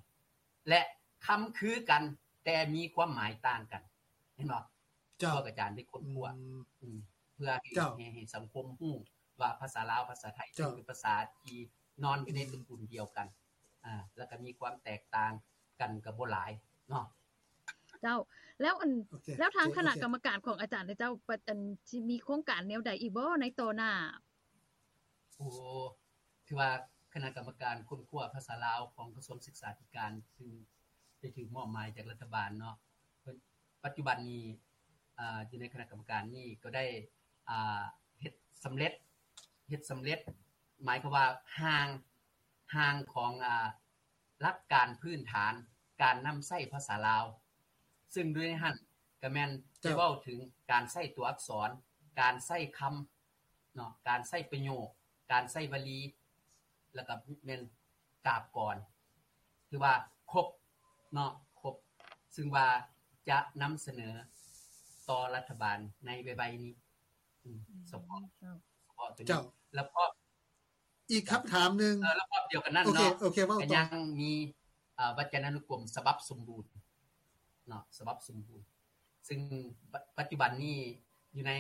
ແລະ ຄຳຄືກັນ ແຕ່ມີຄວາມໝາຍຕ່າງກັນ ເຫັນບໍ່? ເຈົ້າ ພວກອາຈານໄດ້ຄົ້ນຄວ້າ ອືມ ອືມ ເພື່ອໃຫ້ ເຈົ້າ ໃຫ້ ໃຫ້ສັງຄົມຮູ້ວ່າພາສາລາວ ພາສາໄທ ເຈົ້າ ເປັນພາສາທີ່ນອນຢູ່ໃນ ອືມ ຕະກຸນດຽວກັນ ອ່າ ແລ້ວກໍມີຄວາມແຕກຕ່າງກັນກໍບໍ່ຫຼາຍເນາະ. ເຈົ້າ ແລ້ວອັນ ໂອເຄ ແລ້ວທາງ ໂອເຄ ຄະນະກຳມະການຂອງອາຈານເຈົ້າ ອັນ ຊິມີໂຄງການແນວໃດອີກບໍ່ໃນຕໍ່ໜ້າ? ໂອ້ ຖືວ່າຄະນະກຳມະການຄົ້ນຄວ້າພາສາລາວຂອງກະຊວງສຶກສາທິການ ຊຶ່ງໄດ້ຖືກມອບໝາຍຈາກລັດຖະບານເນາະ ເພິ່ນ ປັດຈຸບັນນີ້ ອາ ຢູ່ໃນຄະນະກຳມະການນີ້ກໍໄດ້ ອາ ເຮັດສຳເລັດ ເຮັດສຳເລັດ ໝາຍຄວາມວ່າຮ່າງ ຮ່າງຂອງ ອາ ຫຼັກການພື້ນຖານການນຳໃຊ້ພາສາລາວ ຊຶ່ງຢູ່ໃນຫັ້ນກໍແມ່ນ ເຈົ້າ ໄດ້ເວົ້າເຖິງການໃຊ້ຕົວອັກສອນ ການໃຊ້ຄຳເນາະ ການໃຊ້ປະໂຫຍກ ການໃຊ້ວະລີ ແລ້ວກໍແມ່ນກາບກອນ ຖືວ່າຄົບເນາະ ຄົບ ຊຶ່ງວ່າຈະນຳສະເໜີຕໍ່ລັດຖະບານໃນໄວໆນີ້ ອືມ ສະເພາະ ເຈົ້າ ສະເພາະຕົວນີ້ ເຈົ້າ ແລ້ວກໍ ອີກຄຳຖາມໜຶ່ງ ເອີ ລະບອບດຽວກັນນັ້ນເນາະ ໂອເຄ ໂອເຄ ເວົ້າຕໍ່ ກໍຍັງມີ ເອີ ວັດຈະນານຸກົມສະບັບສົມບູນເນາະ ສະບັບສົມບູນ ຊຶ່ງປັດ ປັດຈຸບັນນີ້ຢູ່ໃນ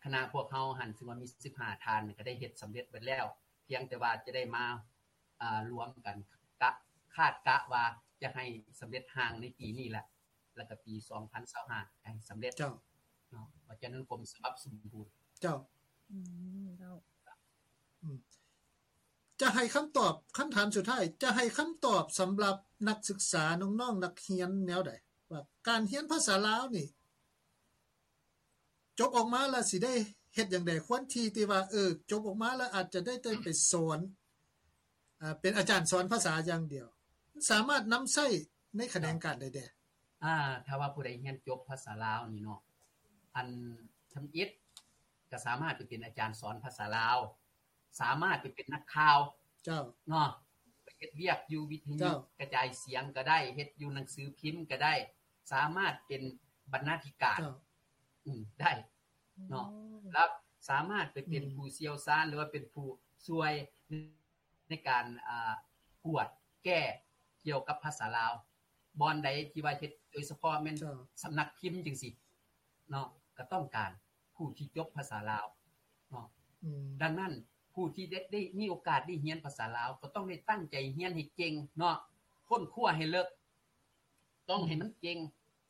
ຄະນະພວກເຮົາຫັ້ນ ຊຶ່ງວ່າມີສິບຫ້າທ່ານ ກໍໄດ້ເຮັດສຳເລັດເບິດແລ້ວ ພຽງແຕ່ວ່າຈະໄດ້ມາ ອາ ລວມກັນ ກະ ຄາດກະວ່າຈະໃຫ້ສຳເລັດຮ່າງໃນປີນີ້ແຫຼະ ແລ້ວກໍປີສອງພັນຊາວຫ້າໃຫ້ສຳເລັດ ເຈົ້າ ເນາະ ວ່າຈະນັ້ນກົມສະບັບສົມບູນ ເຈົ້າ ອືມ ເຈົ້າ ອືມ ຈະໃຫ້ຄຳຕອບ ຄຳຖາມສຸດທ້າຍ ຈະໃຫ້ຄຳຕອບສຳລັບນັກສຶກສາ ນ້ອງໆ ນັກຮຽນແນວໃດ ວ່າການຮຽນພາສາລາວນີ້ ຈົບອອກມາແລ້ວຊິໄດ້ເຮັດຫຍັງແດ່? ຄວນທີ່ ທີ່ວ່າ ເອີ ຈົບອອກມາແລ້ວອາດຈະໄດ້ ໄດ້ໄປສອນ ອາ ເປັນອາຈານສອນພາສາຢ່າງດຽວ ມັນສາມາດນຳໃຊ້ໃນຂະແໜງການໃດແດ່? ອາ ຖ້າວ່າຜູ້ໃດຮຽນຈົບພາສາລາວນີ້ເນາະ ອັນທຳອິດກໍສາມາດໄປເປັນອາຈານສອນພາສາລາວ ສາມາດໄປເປັນນັກຂ່າວ ເຈົ້າ ເນາະ ໄປເຮັດວຽກຢູ່ວິທະຍຸ ເຈົ້າ ກະຈາຍສຽງກໍໄດ້ ເຮັດຢູ່ໜັງສືພິມກໍໄດ້ ສາມາດເປັນບັນນາທິການ ເຈົ້າ ອືມ ໄດ້ເນາະ ໂອ້ ແລ້ວສາມາດໄປເປັນ ອືມ ຜູ້ຊ່ຽວຊານ ຫຼືວ່າເປັນຜູ້ຊ່ວຍໃນການ ອ່າ ກວດແກ້ກ່ຽວກັບພາສາລາວ ບ່ອນໃດທີ່ວ່າເຮັດ ໂດຍສະເພາະແມ່ນ ເຈົ້າ ສຳນັກພິມຈັ່ງຊີ້ເນາະ ກໍຕ້ອງການ ຜູ້ທີ່ຈົບພາສາລາວເນາະ ອືມ ດັ່ງນັ້ນ ຜູ້ທີ່ໄດ້ ໄດ້ມີໂອກາດໄດ້ຮຽນພາສາລາວ ກໍຕ້ອງໄດ້ຕັ້ງໃຈຮຽນໃຫ້ເກັ່ງເນາະ ຄົ້ນຄວ້າໃຫ້ເລິກ ຕ້ອງໃຫ້ມັນເກັ່ງ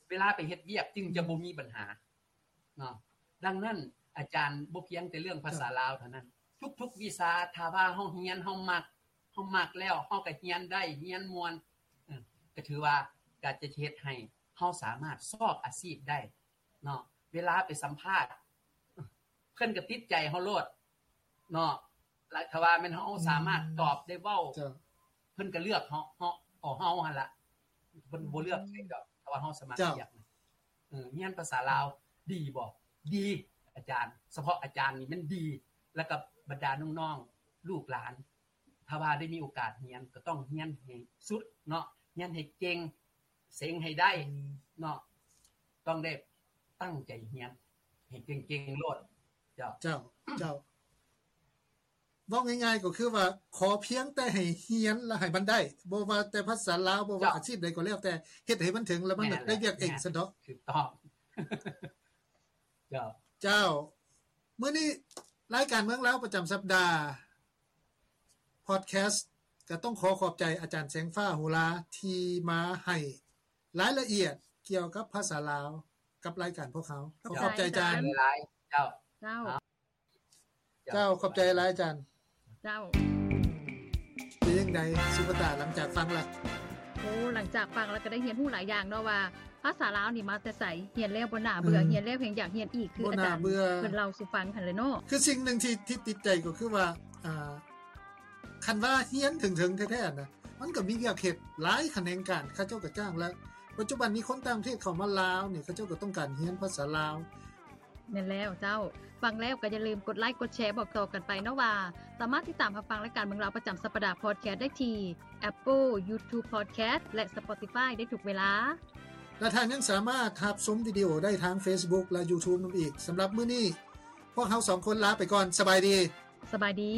ເວລາໄປເຮັດວຽກຈຶ່ງຈະບໍ່ມີບັນຫາເນາະ ດັ່ງນັ້ນ ອາຈານບໍ່ພຽງແຕ່ເລື່ອງພາສາລາວເທົ່ານັ້ນ ທຸກໆວິຊາ ຖ້າວ່າເຮົາຮຽນ ເຮົາມັກ າມັກແລ້ວ ເຮົາກໍຮຽນໄດ້ ຮຽນມ່ວນ ເອີ ກໍຖືວ່າກໍຈະເຮັດໃຫ້ເຮົາສາມາດຊອກອາຊີບໄດ້ເນາະ. ເວລາໄປສຳພາດ ເພິ່ນກໍຕິດໃຈເຮົາໂລດເນາະ. ແລະ ຖ້າວ່າແມ່ນເຮົາສາມາດຕອບໄດ້ເວົ້າ ເພິ່ນກໍເລືອກເຮົາ ເຮົາ ເອົາເຮົາຫັ້ນລະ ເພິ່ນບໍ່ເລືອກໃຜດອກ ຖ້າວ່າເຮົາສະໝັກຮຽນ. ເອີ ຮຽນພາສາລາວດີບໍ່? ດີ ອາຈານ ສະເພາະອາຈານນີ້ແມ່ນດີ ແລ້ວກໍບັນດານ້ອງໆ ລູກຫຼານ ຖ້າວ່າໄດ້ມີໂອກາດຮຽນ ກໍຕ້ອງຮຽນໃຫ້ສຸດເນາະ ຮຽນໃຫ້ເກັ່ງ ເສັງໃຫ້ໄດ້ເນາະ ຕ້ອງໄດ້ຕັ້ງໃຈຮຽນໃຫ້ເກັ່ງໆໂລດ. ເຈົ້າ ເຈົ້າ ເຈົ້າ ເວົ້າງ່າຍໆກໍຄືວ່າ ຂໍພຽງແຕ່ໃຫ້ຮຽນ ແລະ ໃຫ້ມັນໄດ້ ບໍ່ວ່າແຕ່ພາສາລາວ ບໍ່ວ່າອາຊີບໃດກໍແລ້ວແຕ່ ເຮັດໃຫ້ມັນເຖິງ ແລ້ວມັນໄດ້ວຽກເອງຊັ້ນເນາະ. ຖືກຕ້ອງ ເຈົ້າ ເຈົ້າ. ມື້ນີ້ລາຍການເມືອງລາວປະຈຳສັບດາ Podcast ກໍຕ້ອງຂໍຂອບໃຈອາຈານແສງຟ້າ ໂຫລາ ທີ່ມາໃຫ້ລາຍລະອຽດກ່ຽວກັບພາສາລາວກັບລາຍການພວກເຮົາ. ຂໍຂອບໃຈອາຈານຫຼາຍໆ. ເຈົ້າ ເຈົ້າ ເຈົ້າ ຂອບໃຈຫຼາຍອາຈານ. ເຈົ້າ ເປັນຈັ່ງໃດສຸປະຕາ ຫຼັງຈາກຟັງລະ? ໂອ້ ຫຼັງຈາກຟັງລະກໍໄດ້ຮຽນຮູ້ຫຼາຍຢ່າງເນາະ ວ່າພາສາລາວນີ້ມາແຕ່ໃສ, ຮຽນແລ້ວບໍ່ໜ້າເບື່ອ, ຮຽນແລ້ວແຮ່ງຢາກຮຽນອີກ ຄືອາຈານເພິ່ນເລົ່າສູ່ຟັງຫັ້ນແຫຼະເນາະ. ຄືສິ່ງໜຶ່ງທີ່ ທີ່ຕິດໃຈກໍຄືວ່າ ອ່າ ຄັນວ່າຮຽນເຖິງໆແທ້ໆນະ ມັນກໍມີວຽກເຮັດຫຼາຍຂະແໜງການ ເຂົາເຈົ້າກໍຈ້າງ ແລະ ປັດຈຸບັນນີ້ຄົນຕ່າງປະເທດເຂົ້າມາລາວນີ້ ເຂົາເຈົ້າກໍຕ້ອງການຮຽນພາສາລາວ. ແມ່ນແລ້ວເຈົ້າ. ຟັງແລ້ວກໍຢ່າລືມກົດໄລກົດແຊບອກຕໍ່ກັນໄປເນາະວ່າ ສາມາດຕິດຕາມຮັບຟັງລາຍການເມືອງລາວປະຈຳສັບປະດາ Podcast ໄດ້ທີ່ Apple, YouTube Podcast ແລະ Spotify ໄດ້ທຸກເວລາ. ແລະ ທ່ານຍັງສາມາດຮັບຊົມວິດີໂອໄດ້ທາງ Facebook ແລະ YouTube ນຳອີກ. ສຳລັບມື້ນີ້ ພວກເຮົາສອງຄົນລາໄປກ່ອນ. ສະບາຍດີ. ສະບາຍດີ.